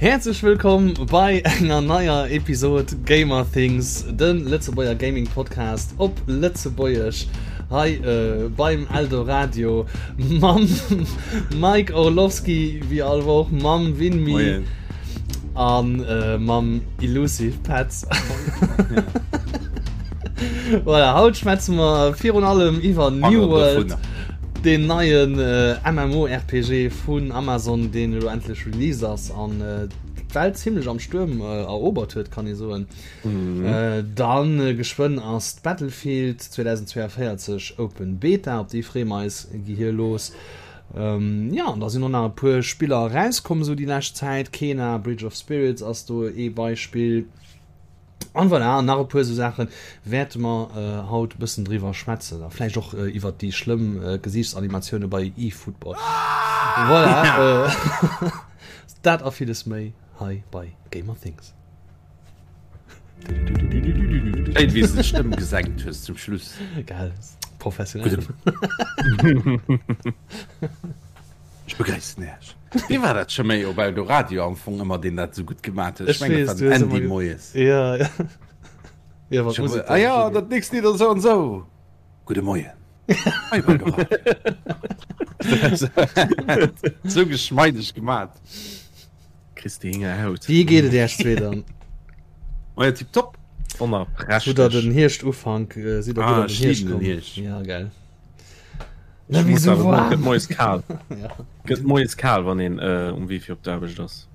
Häerzlech wëllkomm bei enger neier Episod Gamer Things, de Lëtzebuerger Gaming Podcast op Lëtzebuergesch hei äh, beim Eldoradio mam Mike Orlowski wéi all Woch, mam Winmi an äh, mam Illusive Petz. Voilà, haut schwätze mer virun allem iwwer New World, deen neien äh, MMORPG vun Amazon, deen elo endlech released ass an äh, d'Welt zimmlech am Stuerm äh, erobert huet, kann ee soen. Mhm. Äh, dann äh, geschwënn ass d'Battlefield 2042 Open Beta, op déi freeë mer eis gehirlos. Ähm, ja, an da sinn och nach e puer Spiller erauskomm esou déi lescht Zäit. Kena, Bridge of Spirits ass do ee Beispill. An voilà, an nach e puer esou Saache wäerte mer haut e bëssen driwwer schwätzen. A vläicht och iwwert déi schlëmm Gesiichtsanimatioune bei eFootball. Voilà, dat a villes méi hei bei Gamer Things. Schéin, wéi s de d'Stëmm gesenkt hues zum Schluss. Gell, professionell. Ech begréissen Iech. Wee war dat scho méi op Eldoradio am Fong ëmmer, deen dat esou gutt gemat huet? Ech mengen, dat war den Andy moies. Ja, ja. Ja, wat Musek. Ah ja, dat nächst Lidd ass esou an esou. Gudde Moien. Hei op Eldoradio. Esou geschmeideg gemat. Kriss de Hingerhaut. Wéi geet et Iech zwee dann? Maja, tipptopp. Wonnerprächteg. Hutt der den Hierschtufank, sidd der gutt an den Hierscht komm? Ja, gell. Na, wéi sou warm. Gëtt moies kal. Gëtt moies kal, wann een äh, um Wee fir op d'Aarbecht ass.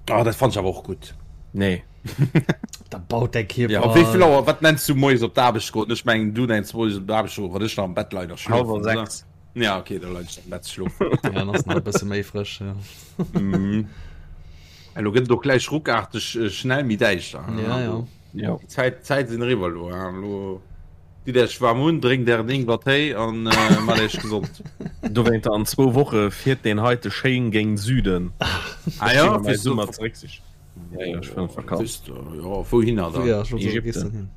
Ah, dat fand ech awer och gutt. Nee. Da baut däi Kierper. Ja, op wéi vill Auer, wat nenns du moies op d'Aarbecht goen? Ech mengen, du nenns moies op d'Aarbecht goen, wann ech nach am Bett leien a schlofen. Halwer 6. Ja, okay, da leien ech am Bett schlofen. Ja, dann ass nach e bësse méi frësch. Ja. Mhm. Elo gëtt et och gläich ruckarteg äh, schnell méi däischter. Ja, ja. Ja. Déi Zäit, d'Zäit sinn eriwwer elo. Elo Ditt Iech waarm un, drénkt ären Ingwertéi an maacht Iech gesond. Dowéinter an zwou Woche fiert deen heite schéin géint Süden. Ah jo, fir Summer zeréck sich. Ja, ja, ech fueren an d'Vakanz. Jo, wouhinner dann? Ja, Ägypten.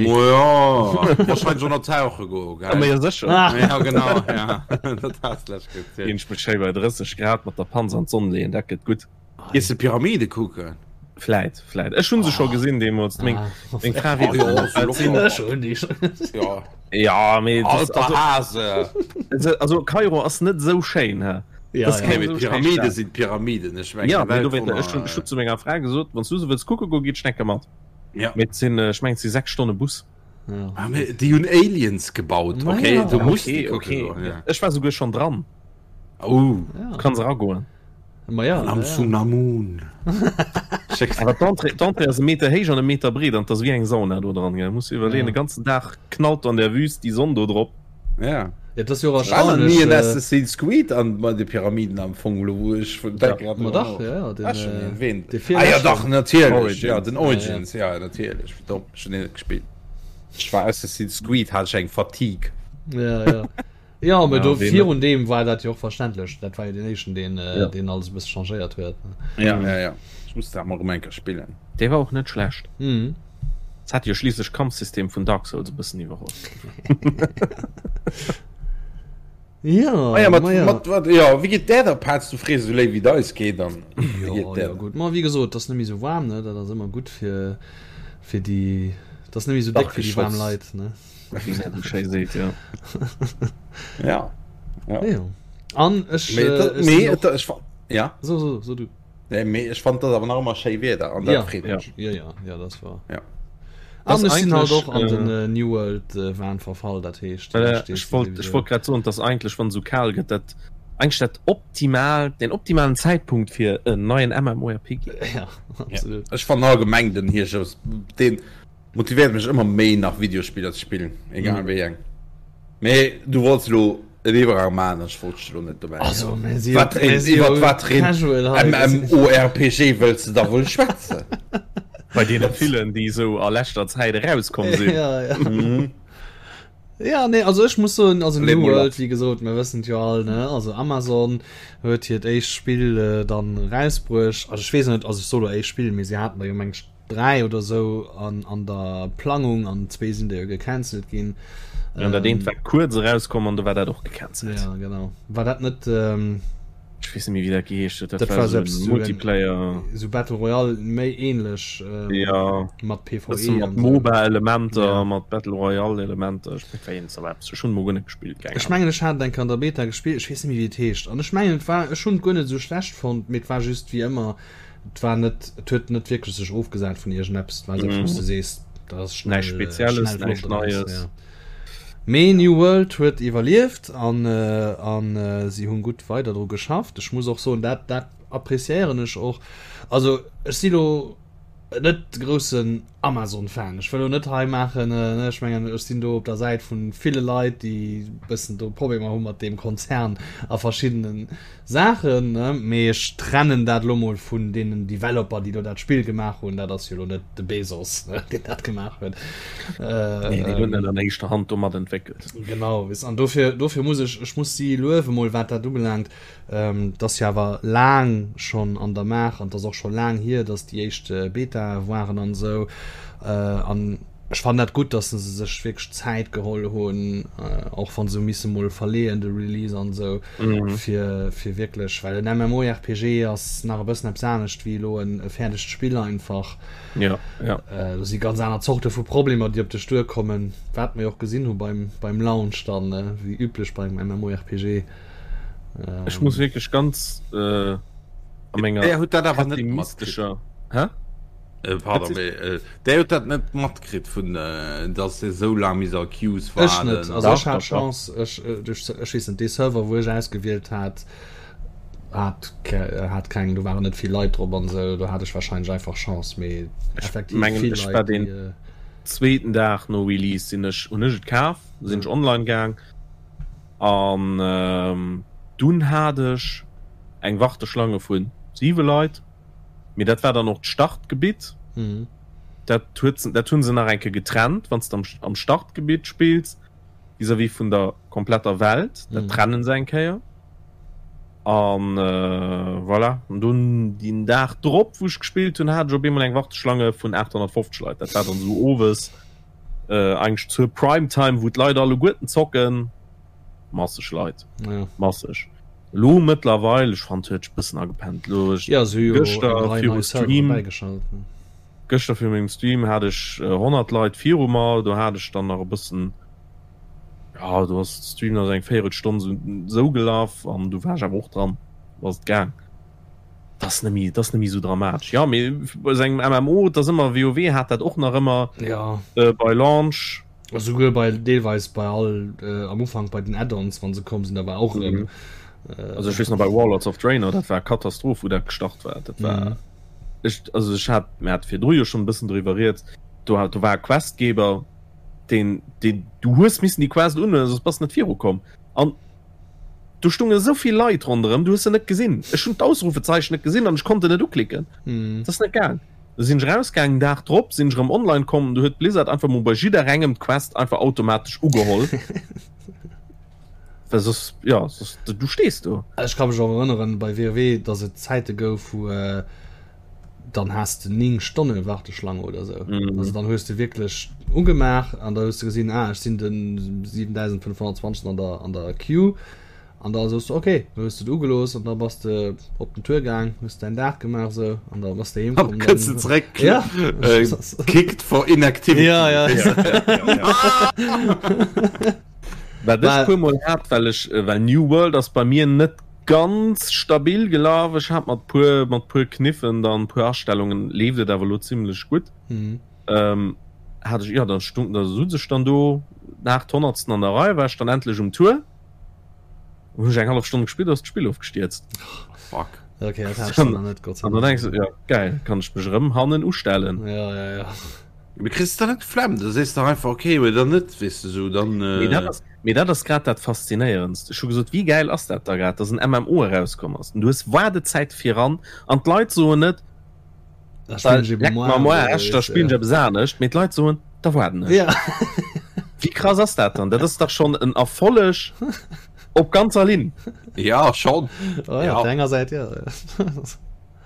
Mojo, wahrscheinlech och nach tauche goen, gell? Ma jo, sécher. Ja, genau, ja. Dat has de lech gezielt. Ginn ech mech schéi bei 30 Grad mat der Panz an d'Sonn leeën, dat gëtt gutt. Gees de Pyramide kucken? Vläit, vläit. Ech hunn se scho gesinn deemools. Meng, meng Fra weess net, wat et sinn. Ja. Ja, mee das, Alter Hase! Also, also Kairo ass net esou schéin, hä? Ja, Das ja. keng Mee esou schéin Pyramide Stad. sinn Pyramiden, ech mengen, Ja, mee Welt dowéinter, ech hunn, ech hunn zu menger Fra gesot, wann s du se wëlls kucke goen, geet Schnecke mat. Ja. Mee et sinn, ech mengen, et si 6 Stonne Bus. Ja. Ah, mee déi hunn Aliens gebaut, Ma okay? ja. Du muss Okay, déi kucke okay. goen, ja. Ech war souguer schonn dran. Oh. Ja. Du kanns eragoen. Ma ja, Am ja. Tsunamun. Awer d'Entrée, d'Entrée ass e Meter héich an e Meter breet an 't ass wéi eng Sauna do dran, gell. Muss iwwerleeën, Ja. de ganzen Dag knallt an der Wüst déi Sonn do drop. Ja. Ja, dat ass jo och War nach ni en erstaunlech. Äh, Assassin's Creed an bei de Pyramiden am Fong, elo wou ech vun Ja. denk grad ma drüber dach, no. ja, ja, den, Ah, schon äh, erwähnt. dee Ah ja, dach, virleschten. natierlech. Origins. Ja, den Ja, ja. Origins, ja, natierlech. Wéi domm, ech hunn deen net gespillt. Ech war Assassin's Creed, hat ech eng Fatigue. Ja, ja. Ja, mee Ja, do ween virun deem war dat jo och verständlech. Dat war jo deen éischten, deen, Ja. deen alles e bësse changéiert huet. Ja, ja, ja. Ech muss dat mol erëm eng Kéier spillen. Dee war och net schlecht. Mhm. Et hat jo schliisslech d'Kampfsystem vun Dark Souls e bëssen iwwerholl. Ja, Ah ja, mat, ma ja. mat, wat, ja, wéi geet där da, Paz? Du frees esou léif, wéi et eis geet an wéi Jo, geet där jo, da? gutt. Ma wéi gesot, et ass net méi esou waarm, ne? Dat ass ëmmer gutt fir, fir déi, et ass net méi esou déck fir déi waarm Dachgeschoss. Leit, ne? Wéi dat esou schéi seet, jo. Ja. Ja. Ja. An ech, Mee, äh, dat, ech mee, sinn och... et, ech, ja. So, so, so du. Nee, mee ech fand dat awer nach ëmmer schéi Wieder an dat Ja. freet Ja. mech. Ja, ja, ja, das war. Ja. An Das ech sinn halt eigentlich, och an den äh, äh, New World äh, Wahn verfall, dat heescht, Äh, ech ech wollt, ech wollt grad soen, dass eigentlech wann esou kal gëtt, dat eigentlech dat optimal, den optimalen Zäitpunkt fir en neien MMORPG. Ja, absolut. Ech fannen allgemeng den Hierscht, den Motivéiert mech ëmmer méi nach Videospiller ze spillen, egal wéi eng. Mee du wollts elo en Iwwergang maachen an ech wollt dech elo net dobäi Also, mir si Wat mir si iwwert wat fir een casual hei. MMORPG wëlls de da wuel schwätzen? Bei deene villen, déi esou a leschter Zäit erauskomm sinn. Ja, ja. Ja, nee, also ech muss soen, also Leet New mol World, lass. wéi gesot, mir wëssen et jo all, ne, also Amazon huet hiert éischt Spill äh, dann erausbruecht. Also ech weess net, also ech soe lo éischt Spill, mee si haten der jo meng ech 3 oder sou an an der Plangung an zwee sinn der jo gecancelt ginn. Ja, dat eent war kuerz erauskomm an du war dat och gecancelt. Ja, genau. War dat net ähm... Ech weess net méi wéi dat geheescht huet. Dat, dat war sou Multiplayer. Sou Battle Royale méi ähnlech ähm, ja. mat PvE. Mat MOBA-Elementer, ja. mat Battle Royale-Elementer. Ech weess net, ech hunn mol guer net gespillt. Ech mengen ech hat eng an der Beta gespillt, ech weess net méi wéi et heescht. An ech mengen et war ech hunn et guer net sou schlecht fonnt, mee et war just wéi ëmmer, et war net, et huet net wierklech sech ofgesat vun iergendeppes. Et war sou, wou s de sees, dat ass schnell, näischt Spezielles, näischt Neies. Ja. Mee New World huet iwwerlieft an an si hunn gutt weider dru geschafft. Ech muss och soen, dat dat appreciéieren ech och. Also ech si lo net de groussen Amazon-Fan. Ech wëll lo net hei maachen, ne, ech mengen ech sinn do op der Säit vu ville Leit, déi bëssen do Problemer hu mat deem Konzern a verschiddenen Saachen, ne, mee ech trennen dat elo mol vun deenen Developer, déi do dat Spill gemaach hunn. Dat ass jo elo net de Bezos, ne, deen dat gemaach huet. Nee, deen huet net an éischter Hand do mat entwéckelt. Genau, weess, an dofir, dofir muss ech, ech muss si luewe mol, wat dat ubelaangt. Et ass jo awer laang schonn an der Maach an et ass och scho laang hier, datt déi éischt Betae waren an esou. An Ech fannen dat gutt, dass se sech wierklech Zäit geholl hunn, och wann se hu misse mol verleeën de Release an esou, fir fir wierklech, well en MMORPG ass nach e bëssen eppes anescht wéi elo en e fäerdegt Spill einfach. Ja, ja. Do si ganz aner Zorte vu Problemer, déi op dech duerkommen, wat mer jo och gesinn hu beim beim Launch dann, wéi üblech beim MMORPG. Ech muss wierklech ganz a menger Där huet dat awer net matkritt. Hä? Äh, pardon, mee, äh, der huet dat net matkritt vun äh, dass se sou laang mis a Queues Ech net. Also ech hat Chance, ech, äh, duerch, ech weess net, dee Server wou ech ausgewielt hat, hat, hat keng, do waren net vill Leit drop an sou, do hat ech wahrscheinlech einfach Chance, mee effektiv mengen, vill ech war Leit, den déi, äh, zweeten Dag no Release sinn ech, hunn ech et kaf, sinn ech online gaang an ähm, dunn hat ech eng Warteschlange vun 7 Leit. Mee dat war dann och d'Startgebitt. Mhm. Dat huet dat hunn se nach eng Kéier getrennt, wann s de am, am Startgebitt spills vis-à-vis vun der kompletter Welt. Dat mhm. trennen se eng Kéier. An äh, voilà. An dunn den Dag drop, wou ech gespillt hunn, hat ech op eemol eng Warteschlange vun 850 Leit. Dat war dann sou owes äh, eigentlech zur Primetime, wou d'Leit alleguerten zocken. Masseg Leit. Ja. Masseg. Lo mëttlerweil, ech fand huet bëssen agepennt. Lo ech ja, se hu jo gëschter eng Rei viru nei Servere Stream bäigeschalt. Ne? gëschter fir mengem Stream hat ech 100 Leit viru mer, do hat ech dann nach e bëssen ja do ass de Stream nach eng Véierelstonn sou sou gelaf an du war ech awer och dran, du ass et gaang. Dat ass net méi, dat ass net méi sou dramatesch. Ja mee bei sou engem MMO, et ass ëmmer, WoW hat dat och nach ëmmer Ja. äh, bei Launch. Esouguer bei deelweis bei all äh, am Ufank bei den Add-ons wann se komm sinn, da war och erëm. Mhm. Äh, Also ech weess nach bei Warlords of Draenor, dat war Katastroph wou dat gestart war. Dat war mhm. ech, also ech hat mir hat virdru jo schon e bëssen driwwer rieds, do hat do war e Questgeber, deen deen du hues missen déi Quest unhuelen, soss bass net virukomm. An do stunge esou vill Leit ronderëm, du hues se net gesinn. Ech hunn d'Ausrufezeichen net gesinn an ech konnt en net uklicken. Mhm. Dat ass net gaang. Du sinn ech rausgaangen, Dag drop sinn ech erëm online komm, du huet Blizzard einfach mol bei jidderengem d'Quest einfach automatesch ugeholl. Well soss, ja, soss, du stees do. Ech ka mech och erënneren bei WoW, dass et Zäite gouf, wou äh, dann has de 9 Stonne Warteschlange oder sou. Mhm. Also dann hues de wierklech ugemaach an da hues de gesinn, ah, ech sinn den 7520 an der, an der Queue. An da soos de ok, da hues de et ugelooss an da bass de op den Tour gaang, hues däin Dag gemaach sou an da bass de heem komm. Kënns de zeréck, ja. äh, kicked for inactivity. Ja, ja. Wat ech puer mol hat, well ech, äh, well New World ass bei mir net ganz stabil gelaf. Ech hat mat puer, mat puer Kniffen dann puer Astellungen leeft et awer lo zimmlech gutt. Mhm. Ähm, hat ech, ja, dann stung, da sutz ech dann do nach d'Honnertsten an der Rei, war ech dann endlech um Tour. Hun ech eng hallef Stonn gespillt, ass d'Spill ofgestierzt. Fuck. Okay, dat hat ech dann nach net, Gott sei An dann Dank. denkst du, ja geil, kann ech mech erëm hannen ustellen. Ja, ja, ja. Mee kriss de dann net d'Flemm? Da sees de dach einfach okay oder net, weess de sou, dann. Mee dat ass, mee dat ass grad dat Faszinéierendst. Ech hu gesot, wéi gäil ass dat da grad, dass en MMO erauskomm ass an du hues Waardezäit viran an d'Leit soen net, Da spillen ech Leck eben mer am Aarsch, da spillen ech ja. eppes anescht. Mee d'Leit soen, da waarden ech. Ja. Wéi krass ass dat dann? Dat ass dach schonn en Erfolleg op ganzer Linn. Ja, schonn. Oh, ja, Ja. op der enger Säit, ja.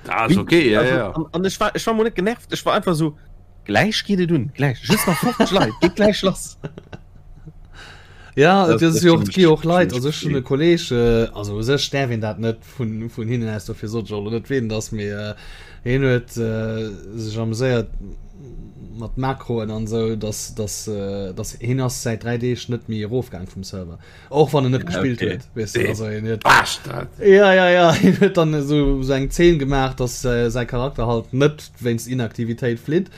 Dat ass okay, ja, Also, ja. an, an ech war, ech war mol net genervt, ech war einfach so, gläich geet et un, gläich, just nach 50 Leit, geet gläich lass. Ja, et ass jo och, et gi jo och Leit, also ech hunn e Kolleg, also u sech däerf een dat net vun, vun hinnen aus, dofir sot ech och elo net ween et ass, mee hien huet sech ameséiert mat Makroen an esou, dass, dass, dass hien ass säit 3 Deeg net méi erofgaang vum Server, och wann en net gespillt huet, weess de, also hien huet. Bastard! Ja, ja, ja, hien huet dann esou, esou eng Zeen gemaach, dass säi Charakter halt net wéinst Inaktivitéit flitt.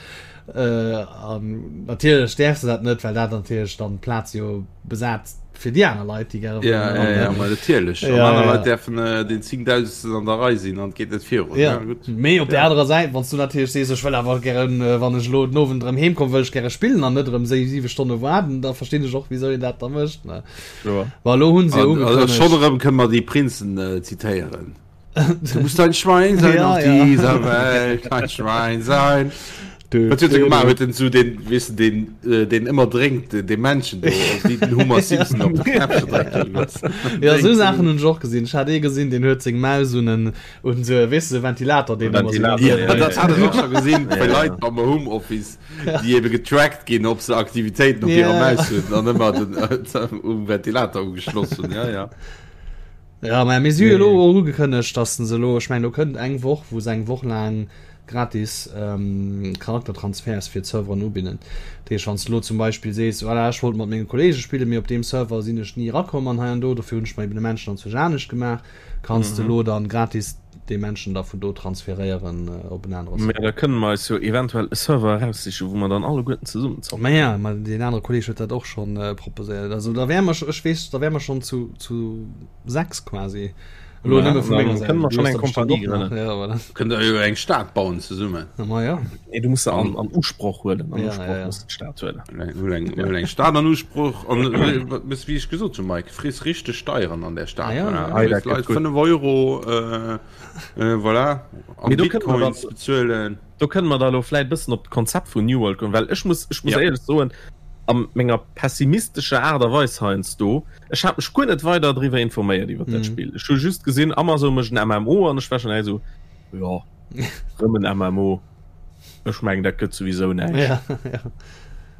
Äh, an natierlech däerf se dat net, well dat natierlech dann d'Plaz jo besat fir déi aner Leit, déi gäre Ja, ja, ja, ma natierlech. An Ja, aner ja. Leit däerfen äh, den 10.000. an der Rei sinn an et geet net virun. Ja, Ja, gutt. mee op der Ja. anerer Säit, wann s du natierlech sees, ech wëll awer gären, äh, wann ech elo den Owend erëm heem komm, wëll ech gäre spillen an net erëm sé siwe Stonne waarden, da verstinn ech och, wisou een dat da mécht, ne? Kloer. Ma elo hunn se jo An, also, ugekënnegt. schonn erëm kënne mer déi Prinzen äh, zitéieren. Du musst ein Schwein sein ja, auf ja. dieser Welt, ein Schwein sein. Du, Was huet du, gemacht du. huet den zu den wis den äh, den immer drénkt den, den Menschen do, wie den Homer Simpson op de Knäppche dréckt. Ja so Sachen hun och gesinn. Ech hat ee gesinn, den huet seng Maus un en un so weess de Ventilator den immer so Ventilator, Ja, ja, dat ja. hat ech och schon gesinn bei Ja, ja. Leit am Homeoffice, déi ebe getrackt ginn, ob se Aktivitéiten op hirer Ja. Maus hunn an ëmmer den äh, um Ventilator ugeschloss hunn. Ja, ja. Ja, mä mir si jo elo och ugekënnegt, dass se elo, ech mengen, do kënnt eng Woch, wou se eng Woch laang gratis Charaktertransferts fir d'Serveren ubidden. Dat heescht, wann s de elo zum Beispill sees, voilà, ech wollt mat menge Kolleege spillen, mee op deem Server sinn ech ni erakomm an hei an do, dofir hunn ech mer eben e Menschen anzwousch anescht gemaach, kanns de elo dann gratis dee Menschen da vun do transferéieren op en anere Mä Server. da kënne mer eis jo eventuell e Server eraussichen, wou mer dann alleguerten zesummen zocken. Mä ja, mä deen anere Kolleeg huet dat och schonn proposéiert. Also da wäre mer, ech weess, da wäre mer schonn zu, zu 6 quasi. Elo Ja, nëmme vu dann menger Säit. kënne mer Du schonn hues eng der bestimmt Kompanie och nach. grënnen. Ja, voilà. Kënnt der jo eng Stad bauen zesummen. Na, ma ja. Nee, du muss se an, an Usproch huelen. An Ja, Usproch ja, ja. muss d'Stad huelen. Huel eng, huel eng Stad an Usproch an äh, wat wéi ech gesot hunn, Mike, friss richteg Steieren an der Stad. Ah, ja, Voilà. ja. Ah, dat Léiss Leit gëtt gutt. 5 Euro, äh, äh, voilà, an Mee do kënne mer Bitcoins dann- bezuelen. Do kënne mer da lo vläit bëssen op d'Konzept vun New World goen, well ech muss, ech muss Ja. éierlech soen, a menger pessimistescher Aart a Weis heiansdo, ech hat mech guer net weider driwwer informéiert iwwer dat Mhm. Spill. Ech hu just gesinn, Amazon mécht en MMO an ech war schon direkt esou, jo, rëm en MMO, ech mengen dat gëtt souwisou näischt. Ja, ja.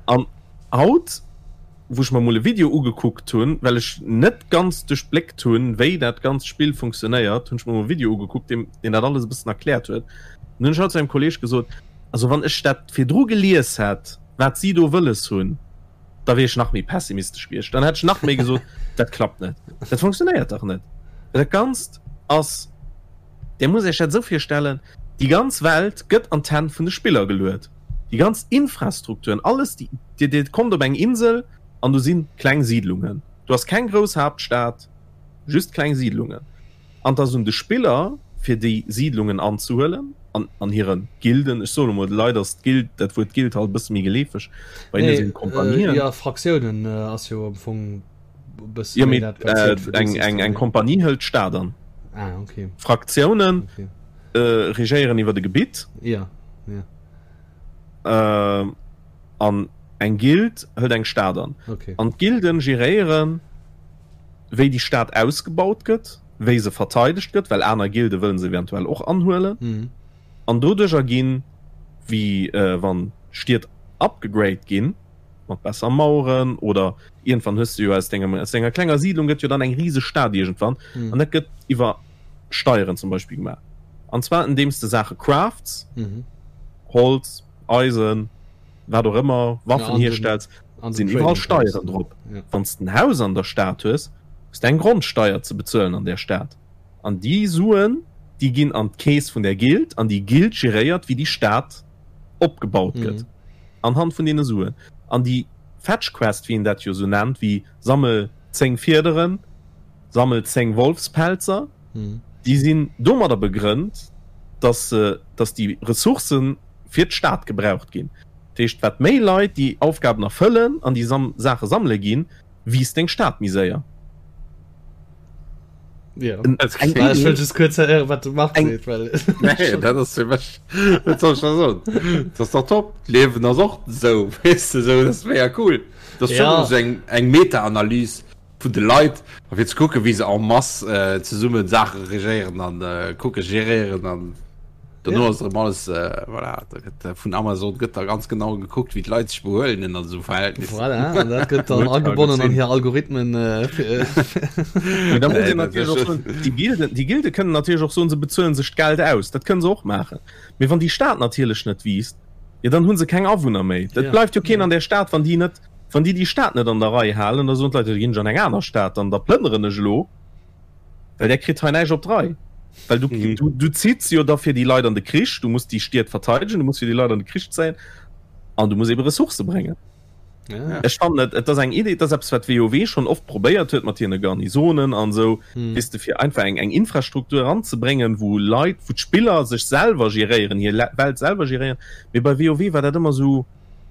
An haut, wou ech mer mol e Video ugekuckt hunn, well ech net ganz duerchbléckt hunn, wéi dat ganzt Spill funktionéiert, hunn ech mer mol e Video ugekuckt, deen, deen dat alles e bëssen erkläert huet. An hunn ech haut zu engem Kolleeg gesot, also wann ech dat virdru gelies hätt, wat si do wëlles hunn, da wier ech nach méi pessimistesch gewiescht. Dann hätt ech nach méi gesot, dat klappt net, dat funktionéiert dach net. Well dat Ganzt ass, Dir musst Iech dat esou virstellen, déi ganz Welt gëtt an d'Hänn vun de Spiller geluet. Déi ganz Infrastrukturen, alles, déi, Dir, Dir kommt op eng Insel an do si kleng Siidlungen. Do ass keng grouss Haaptstad, just kleng Siidlungen. An et ass un de Spiller, fir déi Siidlungen anzehuelen an an hire Gilden. Ech soen emol, leider ass d'Gild, dat Wuert Gild halt e bësse méi geleefeg, bei hinne Nee, sinn d'Kompanien. jo, Fraktiounen ass jo am Fong e bësse Jo, méi mee dat, wat zielt fir de eng, eng, System, eng nee. Kompanie hëlt d'Stad an. Ah, okay. Fraktiounen Okay. regéieren iwwer e Gebitt. Ja, ja. An eng Gild hëlt eng Stad an. Okay. An d'Gilden geréieren, wéi déi Stad ausgebaut gëtt, wéi se verteidegt gëtt, well aner Gilde wëllen se eventuell och anhuelen. Mhm. An doduercher ginn, wéi wann Stied upgegrade ginn, mat besser Maueren oder iergendwann hues de jo aus dengem, aus denger klenger Siidlung gëtt jo dann eng riseg Stad iergendwann. Mhm. An dat gëtt iwwer Steieren zum Beispill gemaach. An zwar andeems de Saache crafts, Mhm. Holz, Eisen, wat och ëmmer, Waffen Ja, an den- hierstells, an den sinn iwwerall Trading Steieren Posten. drop. Ja. Wann s de en Haus an der Stad hues, hues de eng Grondsteier ze bezuelen an där Stad. An déi Suen, déi ginn an d'Keess vun der Guild an déi Guild geréiert, wéi déi Stad opgebaut gëtt Mhm. anhand vun deene Suen. An déi Fetch Quest, wéi een dat jo esou nennt, wéi sammel 10 Fiederen, sammel 10 Wolfspelzer, Mhm. déi sinn domadder begrënnt, dass se, dass déi Ressourcë fir d'Stad gebraucht ginn. Dat heescht, wat méi Leit déi Aufgaben erfëllen an déi Sam Saache sammele ginn, wiisst deng Stad méi séier. Ja. En- Dat eng klingt- Ech wëll just kuerz héieren, wat de Marc Eng- seet, well Nee, dat ass fir mech, wat soll ech da soen? Dat ass dach top. D'Liewen ass och esou, weess de, esou, dat ass mega cool. Dat ass Ja. schon esou eng, eng Meta-Analys vun de Leit, a fir ze kucken, wéi se en masse äh, zesummen Saache regéieren an äh, kucke geréieren an. Dono ass erëm alles äh, voilà, da gëtt äh, vun Amazon gëtt da ganz genau gekuckt, wéi d'Leit sech behuelen ënner esou Verhältnissen. Voilà, an dat gëtt dann agebonnen an hir Algorithmen. Äh, fir, Mee da muss een natierlech och soen, déi Gilden, déi Gilde kënnen natierlech och soen, se bezuelen sech d'Geld aus. Dat kënnen se och maachen. Mee wann déi Stad natierlech net wiisst, jo dann hu se keng Awunner méi. Et bleift jo keen an där Stad, wann déi net, wann déi déi Stad net an der Rei halen, da soen d'Leit, jo da ginn ech an eng aner Stad, dann da plënneren ech elo. Well der kritt hei näischt op d'Rei. Well du, mhm. du, du zitts jo da fir déi Leit an de Krich, du musst déi Stied verteidegen, du musst fir déi Leit an de Krich zéien an du musst eben Ressourcë bréngen. Ja. Ech fand et, et ass eng Idee, dat ass eppes wat WoW schon oft probéiert huet mat hiren Garnisonen an sou, mhm. weess de fir einfach eng eng Infrastruktur anzebréngen, wou Leit, wou d'Spiller sech selwer geréieren, hir Welt selwer geréieren. Mee bei WoW war dat ëmmer sou,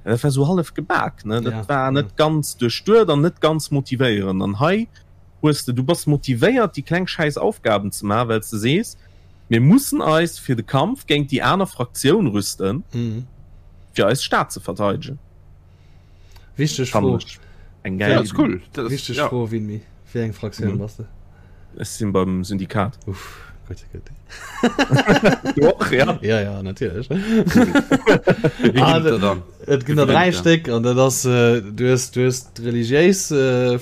dat war sou hallef gebak, ne? Dat ja. war net ja. ganz duerchduet an net ganz motivéierend. An hei hues de, du bass motivéiert déi kleng schäiss Aufgaben ze maachen, well s de sees, mir mussen eis fir de Kampf géint déi aner Fraktioun rüsten, fir eis Stad ze verteidegen. Wichteg Fro. Eng geil Iddi. Cool. Wichteg Fro, Winmi, wéi eng Fraktioun bass de? Ech sinn beim Syndikat. Uff, gutt, gutt. Du och, ja? Ja, ja, natierlech. Wéi ginn et der dann? Et ginn der 3 Stéck an dat ass du hues du hues d'religiéis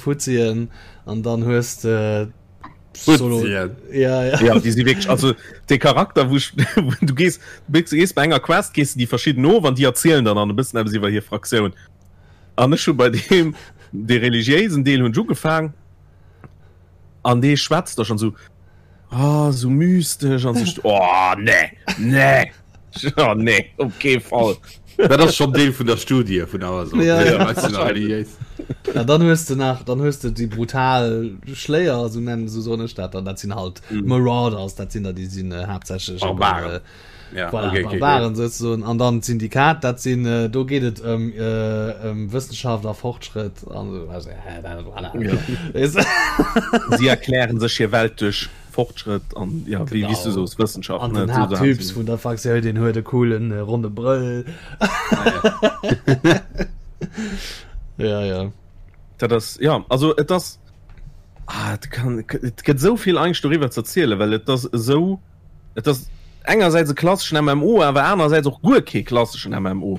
Fuzzien an dann hues de Fuzzien. Ja, ja. Ja, déi si wierklech, also de Charakter wou ech, du gees, du gees bei enger Quest gees de déi verschidden of an déi erzielen dann an e bëssen eppes iwwer hir Fraktioun. An ech hu bei deem dee religiéisen Deel hunn ech ugefaang an dee schwätzt da schonn esou, oh, esou mystesch an sech, oh nee, nee. Oh, nee, op kee Fall. Dat ass schon Deel vun der Studie vun Amazon. Ja, ja. Ja, dann hues du nach dann hues du déi brutal Schléier so nennen so soen ech dat dann dat sinn halt mm. Marauders dat sinn der déi sinn äh, haaptsächlech Barbaren. Äh, ja, voilà, okay, okay, Barbaren okay. sozusagen an dann Syndikat dat sinn äh, do geet et ëm äh, ëm Wëssenschaft a Fortschritt an so, also, äh, voilà. ja. Sie erklären sech hir Welt duerch Fortschrëtt an ja wéi wéi s du soos Wëssenschaft An den Haapttyps vun der Fraktioun deen huet e coolen äh, ronne Brëll. Ja ja. Dat ass ja also et ass ah, et kann et gëtt esou vill eigentlech doriwwer ze erzielen, well et ass esou et ass engersäits e klasseschen MMO, awer anerersäits och guer kee klasseschen MMO.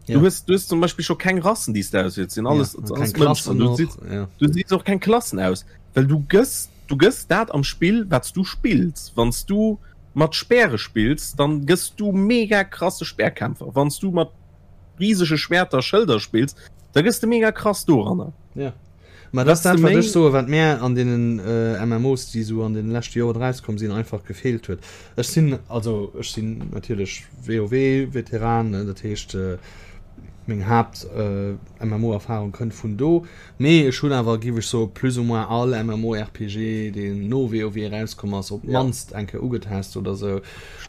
Ja. Du hues du hues zum Beispill scho keng Rassen déi s de auswiels, sinn alles ja, alles keng Mënschen. Klassen Du och, siehst ja. du siehst och keng Klassen aus, well du gëss Du gëss dat am Spill wat s du spills. Wann s du mat Speere spills, dann gëss du mega krasse Speerkämpfer. Wann s du mat risege Schwerter, Schëlder spills, da gëss de mega krass doranner. Ja. Ma dat ass dat, wat ech soen, wat mär an deenen MMOs, déi esou an deene leschte Joren erauskomm sinn, einfach gefeelt huet. Ech sinn, also ech sinn natierlech WoW-Veteran, dat heescht meng Haapt-MMO-Erfarung kënnt vun do. Mee ech hunn awer, giff ech soen, plus ou moins all MMORPG, deen no WoW erauskomm ass, op d'mannst eng Kéier ugetest oder sou,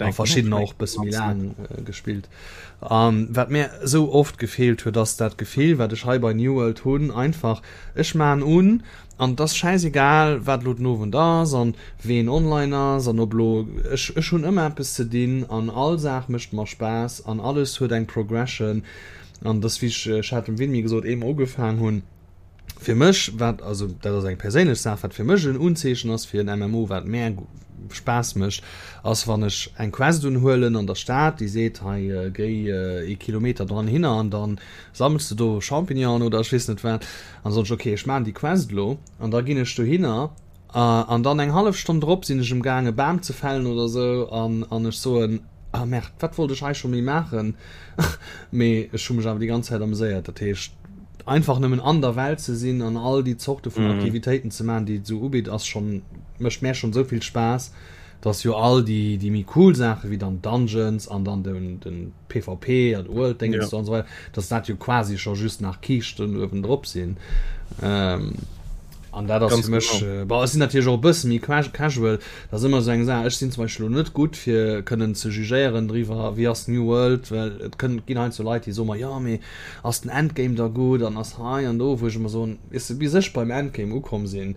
a verschiddener och bësse méi laang gespillt. A wat mär esou oft gefeelt huet, ass dat Gefill, wat ech hei bei New World hunn, einfach, ech maan un an et ass schäisegal, wat elo den Owend ass an ween online ass an ob elo, ech, ech hunn ëmmer eppes ze dinn an all Saach mécht mer Spaass an alles huet eng Progression. An dass, wéi ech, ech hat dem Winmi gesot, eemol ugefaang hunn, fir mech, wat, also dat ass eng perséinlech Saach, wat fir mech en Unzeechen ass fir en MMO, wat mär Spaass mécht, ass wann ech eng Quest unhuelen an der Stad, déi seet, hei géi ee Kilometer dran hinner an da sammels de do Champignonen oder ech weess net wat, an da soen ech, okay, ech maachen déi Quest elo an da ginn ech dohinner an dann eng hallef Stonn drop sinn ech emgaang e Bam ze fällen oder esou an an ech soen, Ah merde, wat wollt ech hei scho méi maachen? Mee ech hu mech awer déi ganz Zäit ameséiert. Dat heescht, einfach nëmmen an der Welt ze sinn an all déi Zorte vun Aktivitéiten ze maachen, déi et esou ubitt, ass schonn, mécht mär schonn esou vill Spaass, dass jo all déi, déi méi cool Saache wéi dann Dungeons an dann den, den PvP an World Dingens do an esou weider, dass dat jo quasi scho just nach Kiischten uewendrop sinn. An dat ass fir mech, bon, ech sinn natierlech och e bësse méi casual, dat ass ëmmer esou eng Saach, ech sinn zum Beispill elo net gutt fir kënnen ze jugéieren driwwer, wéi ass New World, well et kënn, ginn heiansdo Leit, déi soe mer, jo mee ass den Endgame da gutt an ass hei an do, wou ech ëmmer soen, weess de, bis ech beim Endgame ukomm sinn,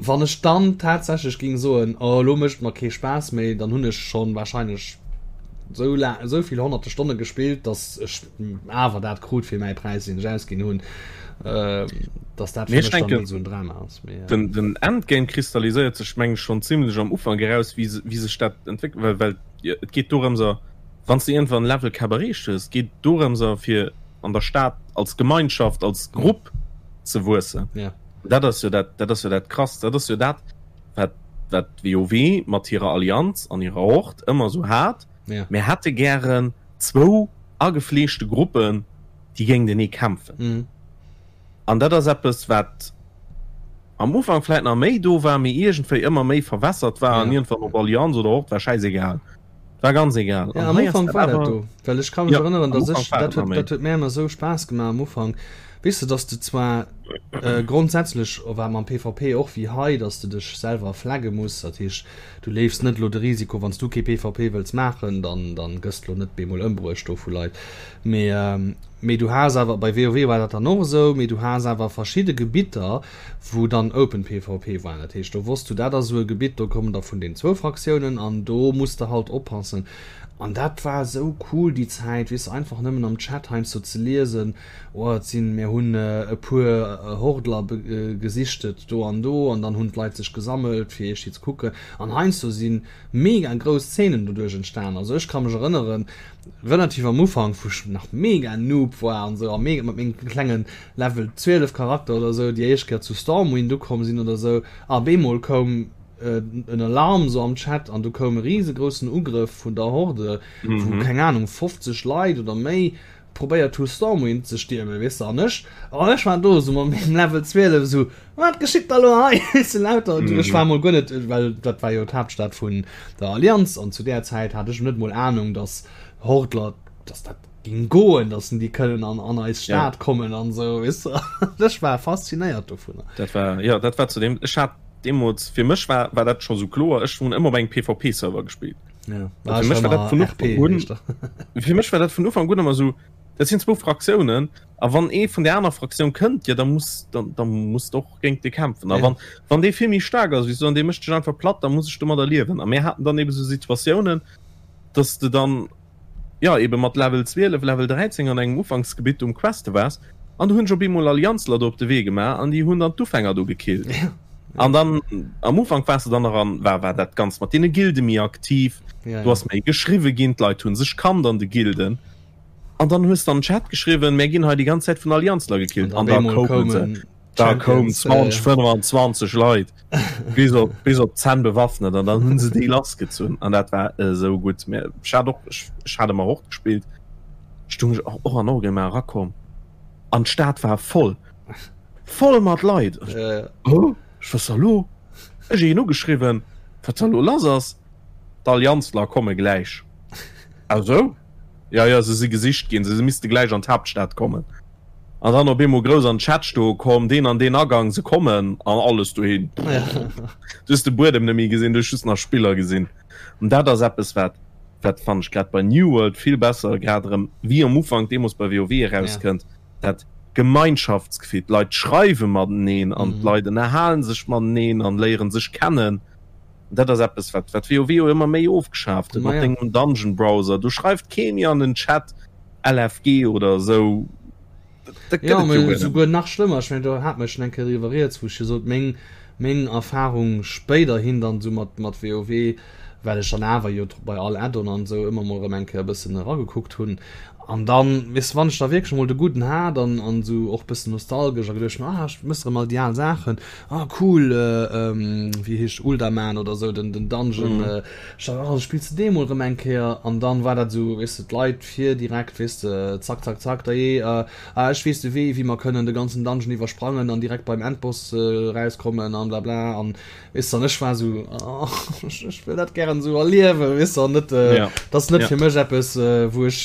wann ech dann tatsächlech géing soen, oh elo mécht et mer kee Spaass méi, dann hunn ech schonn wahrscheinlech esou laang, esou vill honnerte Stonne gespillt, datt ech awer dat krut fir mäi Präis deen ech ausginn hunn, dass dat fir mech dann net esou en Drama ass. Mee, äh, den, den Endgame kristalliséiert sech meng ech schonn zimlech am Ufank eraus, wéi, wéi sech dat entwéckelt, well, well. Et geet dorëmser, wann s de iergendwann Level Cap erreecht hues, geet et dorëmser fir an der Stad als Gemeinschaft, als Grupp ze wuessen. Ja. Dat ass jo dat, dat ass jo dat Krasst. Dat ass jo dat, wat, wat WoW mat hirer Allianz an hirer Hord ëmmer esou hat. Ja. Mir hätte gären zwou agefleeschte Gruppen, déi géintenee kämpfen. Mhm. An dat ass eppes, wat am Ufank vläit nach méi do war, mee iergendwéi ëmmer méi verwässert war an iergendwann op Allianz oder Hord war schäisegal. War ganz egal. Ja, am Ufank war dat do, well ech ka mech erënneren, dass ech, dat huet, dat huet mär ëmmer esou Spaass gemaach am Ufank, weess de, dass de zwar grondsätzlech war mam PvP och wéi hei, dass de dech selwer flagge muss, dat heescht, du leefs net elo de Risiko, wann s du kee PvP wëlls maachen, dann, dann gëss de elo net bemol ëmbruecht do vu Leit, mee, mee du has awer, bei WoW war dat dann och esou, mee du has awer verschidde Gebitter, wou dann Open PvP war, dat heescht do wosst du, dat ass esou e Gebitt, do kommen der vun den zwou Fraktiounen an do muss de halt oppassen. An dat war esou cool déi Zäit, weess de, einfach nëmmen am Chat heiansdo ze liesen, oh et sinn, mir hunn e puer Hordler gesichtet do an do an dann hunn d'Leit sech gesammelt fir iergdi ze kucken an heiansdo si mega grouss Zeenen doduerch entstan. Also ech ka mech erënneren, relativ am Ufank, wou ech nach mega Noob war an esou a mega mat mengem klengen Level 12 Charakter oder sou déi éischt Kéier zu Stormwind ukomm sinn oder sou a bemol koum en Alarm sou am Chat an du koum e riesegroussen Ugrëff vun der Horde wou keng Ahnung 50 Leit oder méi probéiert hu Stormwind ze stiermen weess de an ech an ech war do sou mat mengem Level 12 sou wat geschitt da lo hei weess de lauter ech war mol guer net well dat war jo d'Haaptstad vun der Allianz an zu där Zäit hat ech net mol Ahnung dass Hordler dass dat ging goen, dass déi kënnen an, an eis Stad ja. kommen an sou weess de. Ech war faszinéiert dovunner. Dat war ja dat war zu dem ech hat deemools fir mech war war dat scho sou kloer ech hunn ëmmer op engem PvP Server gespillt. Ja. War fir mech war dat vun Ufank un fir mech war dat vun Ufank un ëmmer sou dat sinn zwou Fraktiounen a wann ee vun der aner Fraktioun kënnt ja da muss dann da muss de och géint dee kämpfen a ja. wann wann dee vill méi staark ass wéi s du an dee mécht dech einfach platt da muss ech domadder liewen a mir haten dann ebe sou Situatiounen dass de dann jo eben mat Level 12, Level 13 an engem Ufanksgebitt um Queste waars an du hunn ech op eemol Allianzler do op de Wee gemaach an déi hunn dann d'Ufänger do gekillt. An dann am Ufank waars de dann nach an war war dat Ganzt mat deene Gilde méi aktiv, do ass méi geschriwwe ginn, d'Leit hunn sech kannt an de Gilden an dann hues de an den Chat geschriwwen, mär ginn hei déi ganz Zäit vun Allianzler gekillt an da koumen se. Da koum 20, 25 Leit bis op, bis op d'Zänn bewaffnet an dann hunn se déi lassgezunn an dat war esou gutt. Mä ech hat och, ech, ech hat ëmmer och gespillt, stung ech och, och an Orgrimmar erakomm an d'Stad war voll, voll mat Leit. Ech, oh, ech was da lo? Ech een ugeschriwwen, wat da lo lass ass. D'Allianzler komme gläich. Ah sou? Ja, ja, se si gesicht ginn, se misste gläich an d'Haaptstad kommen. An dann op eemol grouss an den Chat stoe komm, deen an deen Agang, se kommen an alles dohin. Du hues de Buedem net méi gesinn, du hues just nach Spiller gesinn. An dat ass eppes, wat, wat fannen ech grad bei New World vill besser, grad erëm wéi am Ufank deemools bei WoW erauskënnt, dat Gemeinschaftsgefill. D'Leit schreiwe mateneen an d'Leit ënnerhalen sech mateneen an léieren sech kennen. Dat ass eppes, wat, wat WoW jo ëmmer méi ofgeschaaft huet mat dengem Dungeon Browser. Do schreift kee méi an den Chat. LFG oder esou. Dat gëtt et jo souguer nach schlëmmer. Ech mengen, do hate mer schonn eng Kéier driwwer rieds, wou ech jo sot, meng, meng Erfahrung spéiderhin dann esou mat, mat WoW, well ech dann awer jo bei all Add-on an esou ëmmer mol erëm eng Kéier e bëssen eragekuckt hunn. An dann, weess de, wann ech da wierklech emol de Gudden hat an, an esou och bëssen nostalgesch a geduecht hunn, ah, ech mëss erëm all déi al Saachen, ah cool, wéi heescht Uldaman oder esou, den, den Dungeon, Ech dacht, oh, spills de dee mol rëm eng Kéier? An dann war dat esou, weess de, d'Leit vir direkt, weess de, zack, zack, zack, dajee, ah, ech weess de Wee, wéi mer kënnen de ganzen Dungeon iwwersprangen an direkt beim Endboss erauskommen an blabla. An, weess de, an ech war esou, oh, ech, ech wëll dat gären esou erliewen, weess de, an net, dat ass net fir mech eppes, wou ech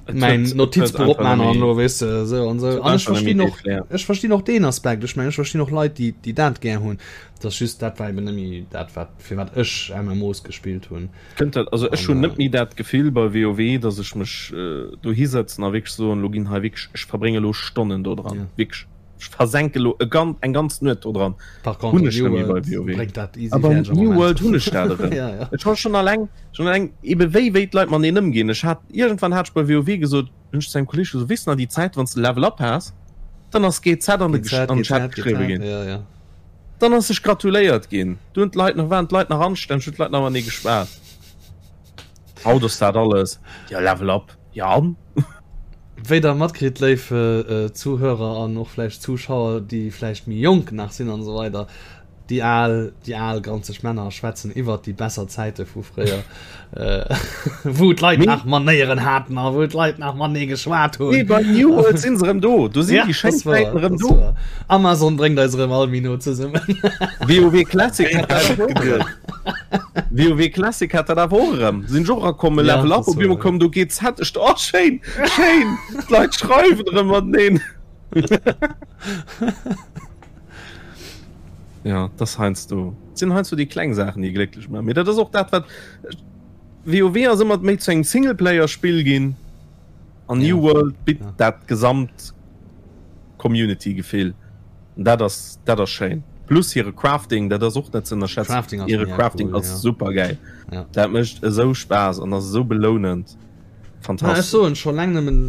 mäin Notizbuch opman an elo, weess de, esou an esou. An ech verstinn och, ech verstinn och deen Aspekt. Ech mengen, ech verstinn och Leit, déi, déi dat gär hunn. Et ass just, dat war eben net méi dat, wat, fir wat ech MMOs gespillt hunn. Kënnt dat, also ech hunn net méi dat Gefill bei WoW, datt ech mech dohi sëtzen a wierklech soen, elo ginn hei wierklech, ech verbrénge elo Stonnen do dran, wierklech, ech versenke elo e gan, eng ganz Nuet do dran. Par contre, Hunn ech net méi bei WoW. Bréngt dat easy A beim New World hunn ech dat erëm. Ja, ja. Ech hu schonn alleng, schonn alleng ebe wéi, wéi d'Leit mateneen ëmginn. Ech hat, iergendwann hat ech bei WoW gesot, hunn ech zu engem Kolleeg gesot, weess de nach déi Zäit, wann s de Level Up has, dann ass GZ an de, an den Chat geschriwwe ginn. Ja, ja. Dann ass sech gratuléiert ginn. Du hunn d'Leit nach, waren d'Leit nach anstänneg, hunn d'Leit nach matenee geschwat. Haut ass dat alles, jo Level up, jo an? Wéi der matkritt, léif Zuhörer an och vläicht Zuschauer, déi vläicht méi jonk nach sinn an esou weider, déi al, déi al granzeg Männer schwätzen iwwert déi besser Zäite vu fréier, wou d'Leit nach Manéieren haten a wou d'Leit nach matenee geschwat hunn. Nee, bei New World sinn se erëm do. Do sinn déi schéin Zäiten erëm do. Amazon bréngt eis erëm all méi no zesummen. WoW Classic hat dat och erëm. WoW Classic hat dat awer och erëm. Sinn ech och erakomm, e Level up, op eemol koum do GZ. Ech do, oh schéin, schéin, d'Leit schreiwen erëm mateneen. Ja, dat ass heiansdo, et sinn heiansdo déi kleng Saachen, déi glécklech maachen. Mee dat ass och dat, wat WoW ass ëmmer méi zu engem Singleplayer-Spill ginn an New World bitt dat gesamt Community-Gefill. An dat ass, dat ass schéin. Plus hire Crafting, dat ass och net ze ënnerschätzen. Crafting ass Hire mega Crafting cool, ass ja. super gäil. Ja. Dat mécht esou Spaass an ass esou belounend. Na, ech Fantastesch. soen scho laang nëmmen,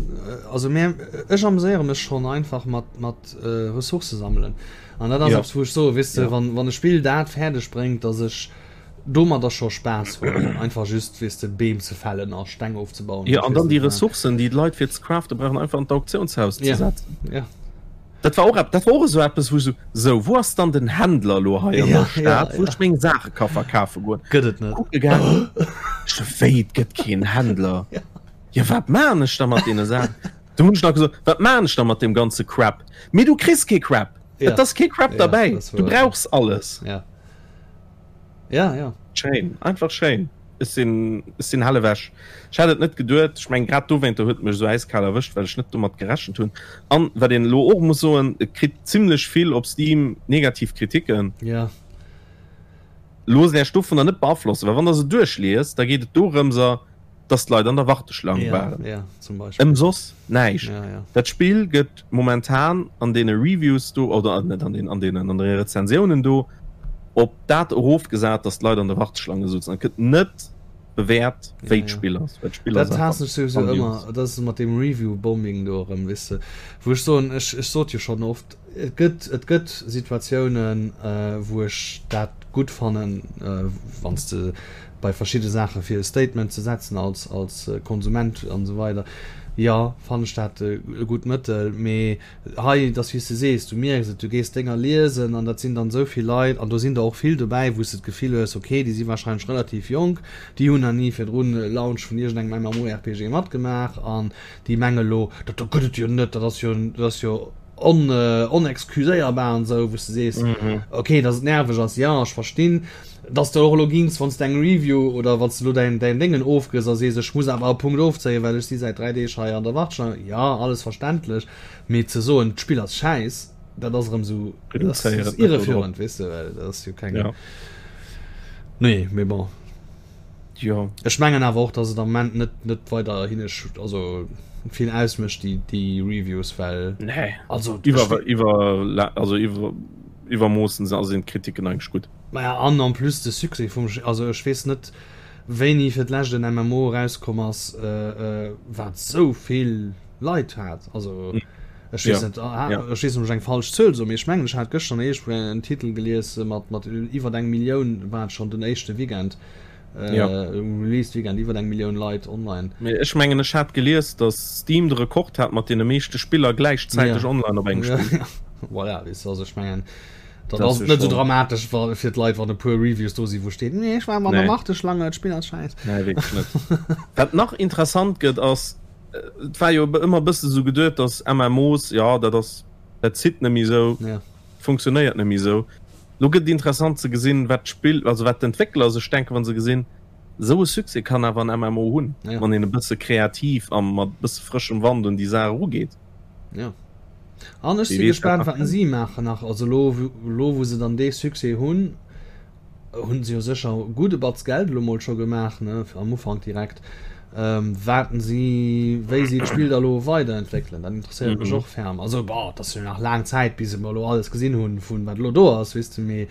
also mär, ech ameséiere mech schonn einfach mat, mat Ressourcë sammelen. An dat ass Ja. eppes, wou ech soe, weess de, Ja. wann, wann e Spill dat fäerdeg bréngt, datt ech domadder scho Spaass hunn, einfach just, weess de, Beem ze fällen a Steng ofzebauen Jo, an ech an weess dann déi net wat. Ressourcen, déi d'Leit fir ze craften brauchen, einfach an d'Auktiounshaus ze Ja, setzen. ja. Dat war och ep, dat war och esou eppes, wou ech esou, sou, wou ass dann den Händler elo hei an Ja, der Stad, ja, wou ja. ech meng Saache ka verkafe goen? Gëtt et net. Kucke gaangen, ech sou, wéi, et gëtt keen Händler? Ja. Jo, wat maan ech da mat deene Saachen? Du hunn ech nach gesot, wat maan ech da mat deem ganze Crap? Mee du kriss kee Crap! Ja. Et ass kee Crap Ja, derbäi, dat ass du wuer. brauchs alles! Ja. Ja, ja. Schéin, einfach schéin. Ech sinn, ech sinn hell ewech. Ech hat et net geduet. Ech mengen, grad dowéinter huet et mech esou äiskal erwëscht, well ech net domat gerechent hunn. An, wat een elo och muss soen, et kritt zimlech vill op Steam negativ Kritiken. Ja. Loosst Äech dovunner net beaflossen, well wann Der se duerchliest, da geet et dorëmser, dass d'Leit an der Warteschlang ja, waren. Ja, zum Beispill. Ëm soss näischt. Ja, ja. Dat Spill gëtt momentan an deene Reviews do, oder net an den, an deenen, an de Rezensiounen do, op dat erofgesat, dass d'Leit an der Warteschlange souzen. Et gëtt net bewäert, wéi Ja, ja. d'Spill ass, well d'Spill Dat ass haassen einfach ech souwisou grandios. ëmmer, dat ass mat deem Review-Bombing do erëm, weess de, wou ech soen, ech, ech sot jo schonn oft, Et gëtt, et gëtt Situatiounen, wou ech dat gutt fannen, wann s de bei verschidde Saache fir e Statement ze setzen als, als Konsument an esou weider, jo, fannen ech dat e gutt Mëttel. Mee hei, et ass wéi s de sees, du mierks et, du gees Dénger liesen an dat sinn dann esou vill Leit an do sinn der och vill dobäi, wou s de d'Gefill hues, okay, déi si warscheinlech relativ jonk, déi hunn nach ni virdrun e Launch vun iergendengem MMORPG matgemaach an déi menge lo, dat do gëtt et jo net, dat ass jo, dat ass jo on, onexcuséierbar an esou, wou s de sees, mhm. okay, dass et nerveg ass, ja, ech verstinn, dass du och elo gings, wann s de eng Review oder wann s du elo däin, däin Déngen ofgëss a sees, ech muss awer e Punkt ofzéien, well ech si säit 3 Deeg hei an der Warteschlange, ja, alles verständlech, mee ze soen, d'Spill ass schäiss, dat ass erëm esou, dat ass irreführend, weess de, well dat ass jo keng. Ja. Nee, mee bon. Jo. Ech mengen awer och, dass et am Moment net, net weider hinne, also vill ausmécht, déi, déi Reviews, well. Nee. Also, iwwer, iwwer, also iwwer, iwwermoossen se, also sinn d'Kritiken eigentlech gutt. Maja, an en plus de Succès vum, also ech weess net, wéini fir d'lescht en MMO erauskomm ass, wat esou vill Leit hat. Also ech weess net, ech weess net, ob ech eng falsch Zuel soen, mee ech mengen, ech hat gëschter iergendwou en Titel gelies mat, mat iwwer eng Millioun war et schonn den éischte Weekend. Ja. Um Release Weekend iwwer eng Millioun Leit online. Mee ech mengen ech hat gelies, datt Steam de Rekord hat mat deene meeschte Spiller gläichzäiteg ja. online op engem Spill. Ja. Voilà, weess du, also ech mengen dat ass net sou dramatesch wa fir d'Leit wann e puer Reviews do si wou steet nee ech war an der Nee. Warteschlange, d'Spill ass schäiss. Nee, wierklech net. Wat nach interessant gëtt ass, et war jo ëmmer e bësse sou geduet, datt MMOs, jo dat ass, dat zitt net méi sou, Ja. funktionéiert net méi sou. Lo gëtt et interessant ze gesinn, wat d'Spill, also wat d'Entwéckler sech denken, wa se gesinn, esou e Succès kann awer en MMO hunn, Ja. wann een e bësse kreativ a mat e bësse frëschem Wand un déi Saach erugeet. Ja. An ech Wie si weess, wat gespaant, nach wat kënnt. si maachen nach. Also lo, lo wou se dann dee Succès hunn, hunn se jo sécher e gudde Batz Geld elo mol scho gemaach, ne, am Ufank direkt. Ähm, waten si, wéi si d'Spill da lo weiderentwéckelen, dat interesséiert mech Mhm. och ferm. Also bon, et ass jo nach laang Zäit, bis mer elo alles gesinn hunn, vun wat elo do ass, weess de, mee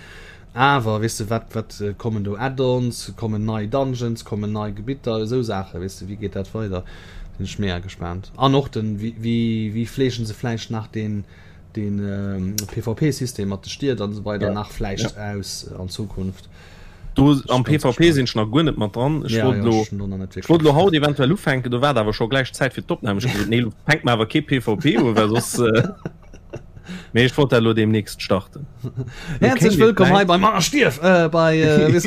awer, weess de, wat, wat kommen do Add-ons, kommen nei Dungeons, kommen nei Gebitter, esou Saachen, weess de, wéi geet dat weider, sinn ech mega gespaant. An och den, wéi, wéi, wéi fleegen se vläicht nach deen, deen PvP-System mat de Stied an esou weider Ja. nach vläicht Ja. aus an Zukunft. Do am PvP sinn ech nach guer net mat dran. Ech wollt elo, ech wollt elo haut eventuell ufänken, do war et awer scho gläich Zäit fir d'Opnam. Ech hu gesot, nee, elo fänke mer awer kee PvP un, well soss. Mee ech wollt dat elo deemnächst starten. Häerzlech wëllkomm hei bei Mann Stierf äh, bei äh,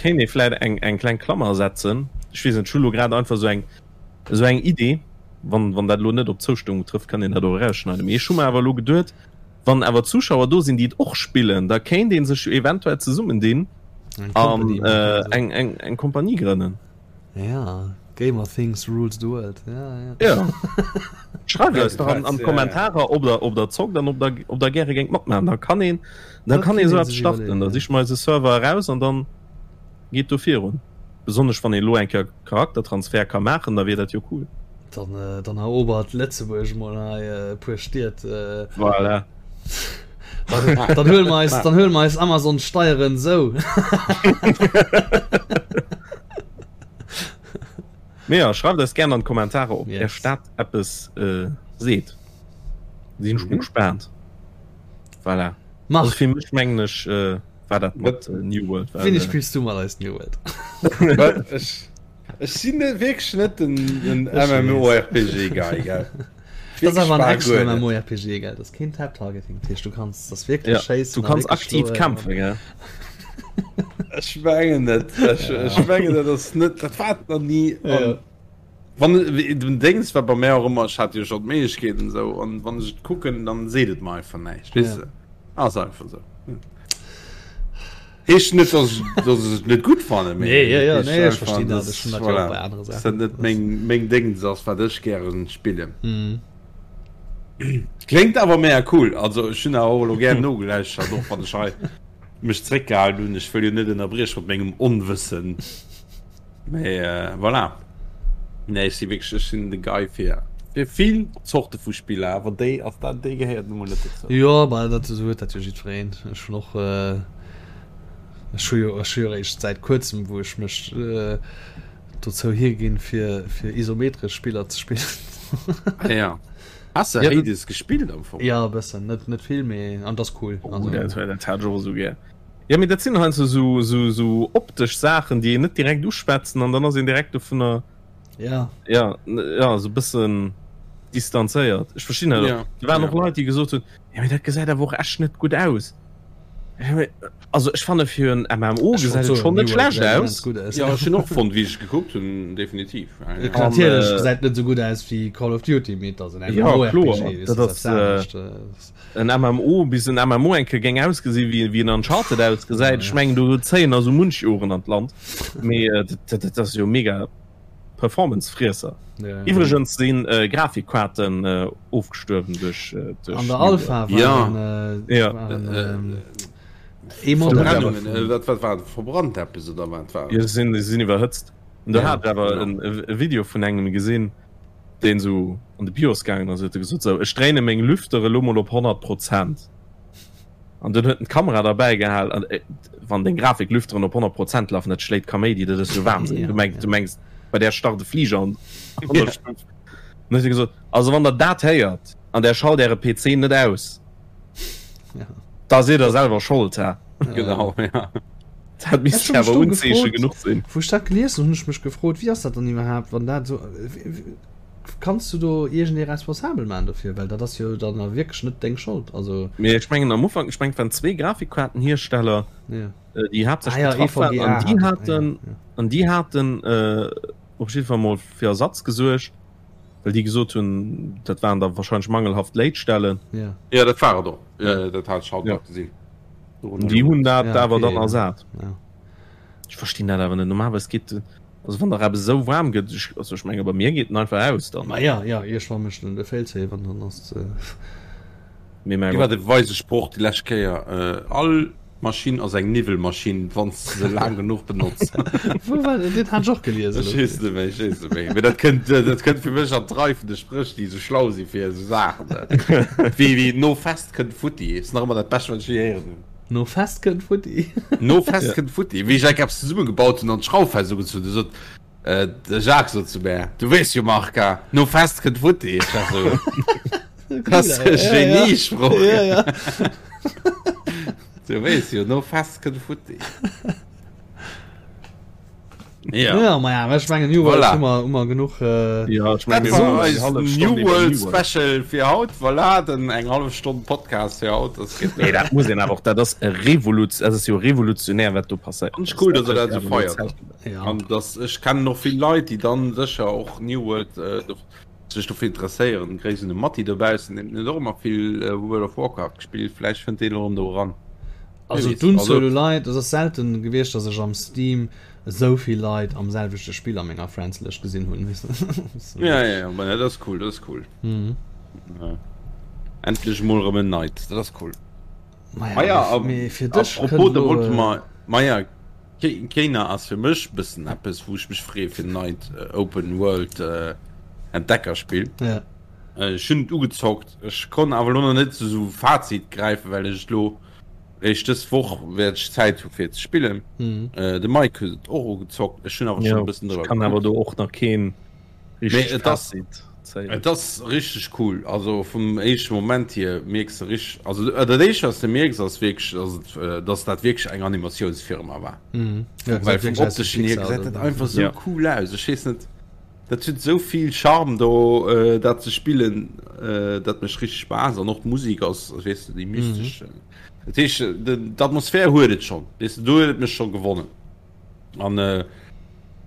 Kéint ee vläit eng eng kleng Klammer setzen. Ech weess net, ech hu lo grad einfach esou eng esou eng Idee. Wann wann dat elo net op Zoustëmmung trëfft, kann een dat och erausschneiden. Mee ech hu mer awer elo geduet, wann awer Zuschauer do sinn, déi et och spillen, da kéint ee sech jo eventuell zesummendinn an eng eng eng Kompanie grënnen. Ja, Gamer Things rules the world. Ja, ja. ja. Schreift eis doch an, an Kommentarer, ob der, ob der zockt an ob der, ob der gäre géingt matmachen. Da kann een, da kann een sou eppes starten. Da siche mer eis e Server eraus an dann geet do virun. Besonnesch wann een elo eng Kéier Charaktertransfer ka maachen, da wier dat jo cool. Dann, äh, dann erobert Lëtzebuerg mol hei äh, e puer Stied. Äh, voilà. Dann, dann huele mer eis, dann huele mer eis Amazon Steieren sou. Mee ja, schreift eis gern an d'Kommentarer, ob yes. Är dat eppes äh, seet. Sinn ech mhm. gespannt. Voilà. Mach. Also fir mech mengen ech äh, war dat mat äh, New World. Wéini äh, spillst du mat eis New World? Ech, ech sinn net wierklech net den, den MMORPG Guy, gell? Das ass awer en Action MMORPG, gell? Das keen Tab Targeting, dat heescht du kanns das wierklech ja, schéissen. Du kanns aktiv kämpfen, gell? Ech mengen net. Ech, ech mengen dat ass net, dat war et nach ni. Ja. Wann den Dings war bei mär och ëmmer, ech hat jo schon d'Méiglechkeet an esou, an wann ech et kucken, dann seet et mer einfach näischt, weess de? Ass einfach esou. Heescht net, dass ech, dass ech et net gutt fannen, mee Nee, ja, ja, heescht nee, ech einfach, verstinn dat. dass, Ech hunn dat jo och voilà, bei anere dass dat Saachen. net meng, meng Déngs ass, wat ech gären spillen. Mhm. Kléngt awer mega cool. Also ech hunn awer och elo gär nogelauschtert, och wann ech hei mech zréckgehalen hunn. Ech wëll jo net ënnerbrieche mat mengem Onwëssen. Mee voilà. Nee, ech si wierklech, ech sinn de Guy fir, fir vill Zorte vu Spiller, awer déi ass dat, déi gehéiert nu mol net dozou. Jo, bah dat esou huet dat jo jiddwereen. Ech hunn och, ech hu jo, ech hu jo eréischt säit kuerzem, wou ech mech dozou higinn, fir, fir isometresch Spiller ze spillen. Ah ja. Has de Hades gespillt am Fong? Jo, e bëssen, net, net vill, mee an et ass cool. Oh, dat, dat hat ech och esou gär. Jo, mee dat sinn heiansdo sou, sou, sou optesch Saachen, déi een net direkt uschwätzen an dann ass een direkt dovunner, Ja. ja, ja, sou bëssen distanzéiert. Ech verstinn dat och. Ja, Do waren ja. och Leit, déi gesot hunn, jo mee dat gesäit awer och echt net gutt aus. Ja, mee, also ech fanne fir en MMO Ech wollt gesäit et soen, schonn net New World schlecht gesäit immens aus. gutt aus. Ja, ech hunn och fonnt, wéi ech et gekuckt hunn, definitiv. Ja, ja. An, Natierlech äh, gesäit net sou gutt aus wéi Call of Duty, mee et ass en Ja, MMORPG, kloer, weess dat de, ass, ass eppes anescht. En MMO, bis en MMO eng Kéier géing ausgesi wéi wéi en Uncharted ausgesäit, ech mengen do zéien der sou munch Joren an d'Land, mee dat ass jo mega Performance-Friesser. Iwwregens si Grafikkaarten ofgestuerwen duerch duerch An der Alpha waren waren ee Modell. Verbrennungen, wat wat war verbrannt eppes oder wat war? Jo, se sinn se sinn iwwerhëtzt. Do hat ech awer e Video vun engem gesinn. deen sou an de BIOS gaangen ass, huet e gesot, sou ech dréine meng Lüfter elo mol op 100 Prozent. An dunn huet en d'Kamera derbäi gehal an wann deng Grafiklüfteren op 100 Prozent lafen, dat schléit Kaméidi, dat ass jo Wahnsinn. Du mengs, du mengs bei där start e Fliger an an der Stuff. An huet e gesot, also wann der dat héiert an där schalt äre PC net aus, da sidd der selwer Schold, hä? Genau, ja. Dat misst Ech hu mech awer do Unzeeche gefrot, genuch sinn. Wou ech dat gelies hunn, hunn ech mech gefrot, wéi ass dat dann iwwerhaapt, wann dat esou, kanns du do iergendee responsabel maachen dofir, well dat ass jo dann a wierklech net deng Schold, also. Mee ech mengen am Ufank, ech mengen et waren zwee Grafikkaartenhiersteller, Ja. déi Ah haaptsächlech ja, betraff waren EVGA an déi hat, haten, ja, ja. an déi haten op jiddwer Fall mol fir Ersatz gesuergt, well déi gesot hunn, dat waren da wahrscheinlech mangelhaft Léitstellen. Ja. Ja, dat war et och, dat hat ech haut Ja. nach gesinn. Déi hunn dat ja, awer okay, dann ersat. Ja. Ech verstinn dat awer net. Normalerweis geet also wann der eppes esou waarm gëtt, ech, also ech menge bei mir geet en einfach aus dann. Ma ja, ja, iergendwann mécht en de Failsafe an dann ass äh... Mee mäi Wéi war de weise Sproch déi lescht Kéier? Äh, all Maschinn ass eng Niwwelmaschinn, wann s de se laang genuch benotz. Wou war dat? Dat hat ech och gelies Ech weess net méi, ech weess net méi. Mee dat kënnt, dat kënnt fir mech an d'Rei vun de Spréch, déi esou schlau si fir esou Saachen. Wéi, wéi no Fest kënnt futti. Ass nach ëmmer dat Bescht, wat ech je héieren hunn. No Fest kënnt futti. No Fest kënnt futti. Wéi ech enk eppes zesummegebaut hunn an d'Schrauf fest ugezunn hunn, sot de Jacques sot zu mär, Du weess jo, Marc, no Fest kënnt futti. Ech war sou, Dat ass e Geniesproch. Ja, ja. Du weess jo, no Fest kënnt futti. Ja. Ja, ma ja, ech mengen New World voilà. hu mer, hu mer genuch. Äh, ja, ich mein, war eis New World Special fir haut. Voilà, den eng half Stonn Podcast fir haut. Das geht nee, dat muss een awer och, dat ass e Revolut, dat ass jo revolutionär, wat do passéiert. Ganz cool, dass er dat so feiert. Ja. An das, ech kennen noch vill Leit, déi dann sécher och New World äh, sech dofir interesséieren. Gréiss un de Matti dobaussen, deen huet och ëmmer vill äh, World of Warcraft gespillt. Vläicht fënnt deen och erëm do eran. Also d'Unzuel u Leit, et ass selten gewiescht, datt ech am Steam esou vill Leit am selwechte Spill a menger Friends-Lëscht gesinn hunn. Ja, ja, ja, dat ass cool, dat ass cool. Mhm. Ja. Endlech mol erëm en neit, dat ass cool. Maja, ah, ja, mee fir dech apropos, da wollte mer, maja, Kena ass fir mech bëssen eppes, wou ech mech freeë fir neit äh, Open World äh, Entdeckerspill. Ja. Äh, ech hunn et ugezockt, ech konnt awer lo nach net zu sou Fazit gräifen, well ech et lo Réischt dës Woch wäert ech Zäit hu fir ze spillen. Mhm. Äh, de Mike huet et och ugezockt. Ech hunn awer schon e bëssen drüber kann awer do och nach keen richtegt Fazit zéien. Et ass richteg cool. Also vum éischte Moment hier mierks de richteg, also dat éischt wat de mierks ass wierklech, dass et, äh, dass dat wierklech eng Animatiounsfirma war. Mhm. Ja, Well vum opteschen hier gesäit dat einfach sou cool aus. Ech weess net. Dat huet esou vill Charme do dat ze spillen, dat mécht richteg Spaass an och d'Musek ass, weess de, déi mystesch. Dat heescht d'Atmosphär huet et schonn, weess de, do huet et mech scho gewonnen. An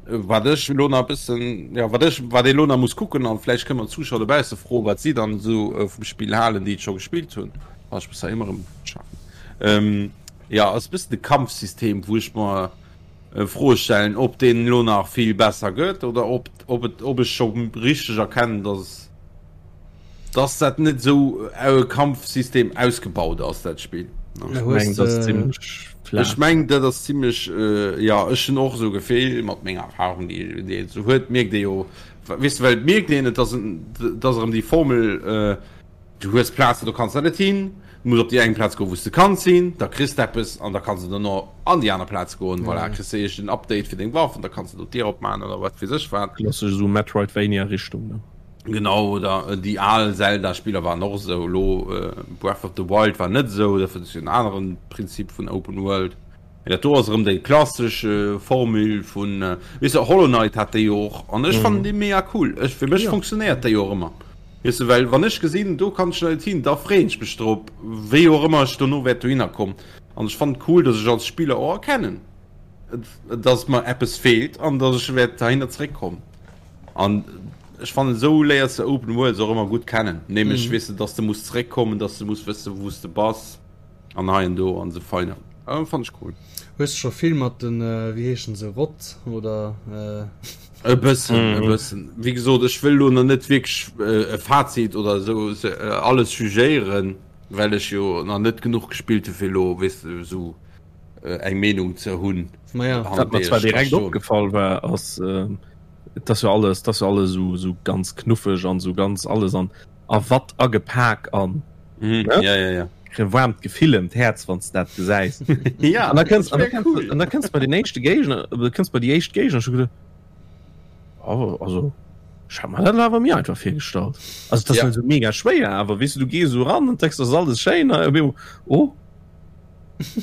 wat ech elo nach e bëssen, jo wat ech, wat ee elo nach muss kucken an vläicht kënne mer d'Zuschauer dobausse froen, wat si dann esou vum Spill halen, déi et scho gespillt hunn, ah ech muss hei ëmmer erëm schafen, jo ass e bëssen de Kampfsystem, wou ech mer Froe stellen, ob deen elo nach vill besser gëtt oder ob, ob, et, ob ech scho richteg erkennen, dass, dass dat net esou e Kampfsystem ausgebaut ass, dat Spill. Ech mengen, dat ass zimmlech flaach. Ech mengen, dat ass zimmlech, jo, ech hunn och esou e Gefill, mat menger Erfahrung, déi déi een esou huet, mierkt ee jo, weess de, well et mierkt een, et ass, et ass erëm déi Formel, Du hues Plazen, do kanns de net hin. Du muss op déi eng Plaz goen, wou s de kanns hin. Da kriss de eppes an da kanns de dono an déi aner Plaz goen. Voilà, kriss de iergend en Update fir deng Waff an da kanns de do d'Dier opmaachen oder wat weess ech wat. Klassesch esou Metroidvania-Richtung, ne? Genau, oder déi al Zelda-Spiller waren och esou. Elo Breath of the Wild war net esou, dat war en aneren Prinzip vun Open World. Mee dat do ass erëm déi klassesch Formule vun, weess de, Hollow Knight hat déi jo och an ech fannen déi mega cool. Ech, fir mech funktionéiert déi och ëmmer. Weess de, well wann ech gesinn, do kann ech net hin, da freeën ech mech drop, wéi och ëmmer ech dono wäert dohinner kommen. An ech fannen et cool, dass ech als Spiller och erkennen, dass mer eppes feelt an dass ech wäert heihinner zeréckkommen. An ech fannen, esou léiers de Open Worlds och ëmmer gutt kennen, nämlech, weess de, dass de muss zeréckkommen, dass de muss wëssen, wou s de bass. An hei an do an sou feiner. Ah, fand ech cool. Hues de scho vill mat den, wéi heeschen se, Rott oder? E bëssen, e bëssen. Wéi gesot, ech wëll lo nach net wierklech e Fazit oder esou alles jugéieren, well ech jo nach net genuch gespillt hu fir lo, weess de, esou eng Meenung ze hunn. Maja. Wat mer zwar direkt opgefall war, ass, et ass jo alles, et ass jo alles esou, esou ganz knuffeg an esou ganz alles an a Watt agepak an mhm. ja, ja, ja. e waarmt Gefill ëm d'Häerz wann s dat gesäis. ja, an da kënns an cool. da kënns bei den éischte Géigner äh, kënns bei déi éischt Géigner schon gedacht, oh, also ich hab mir dat awer mir einfach virgestallt. Also das ja. so mega schwéier, awer wis du, du gees so ran und denkst das alles schéin oh.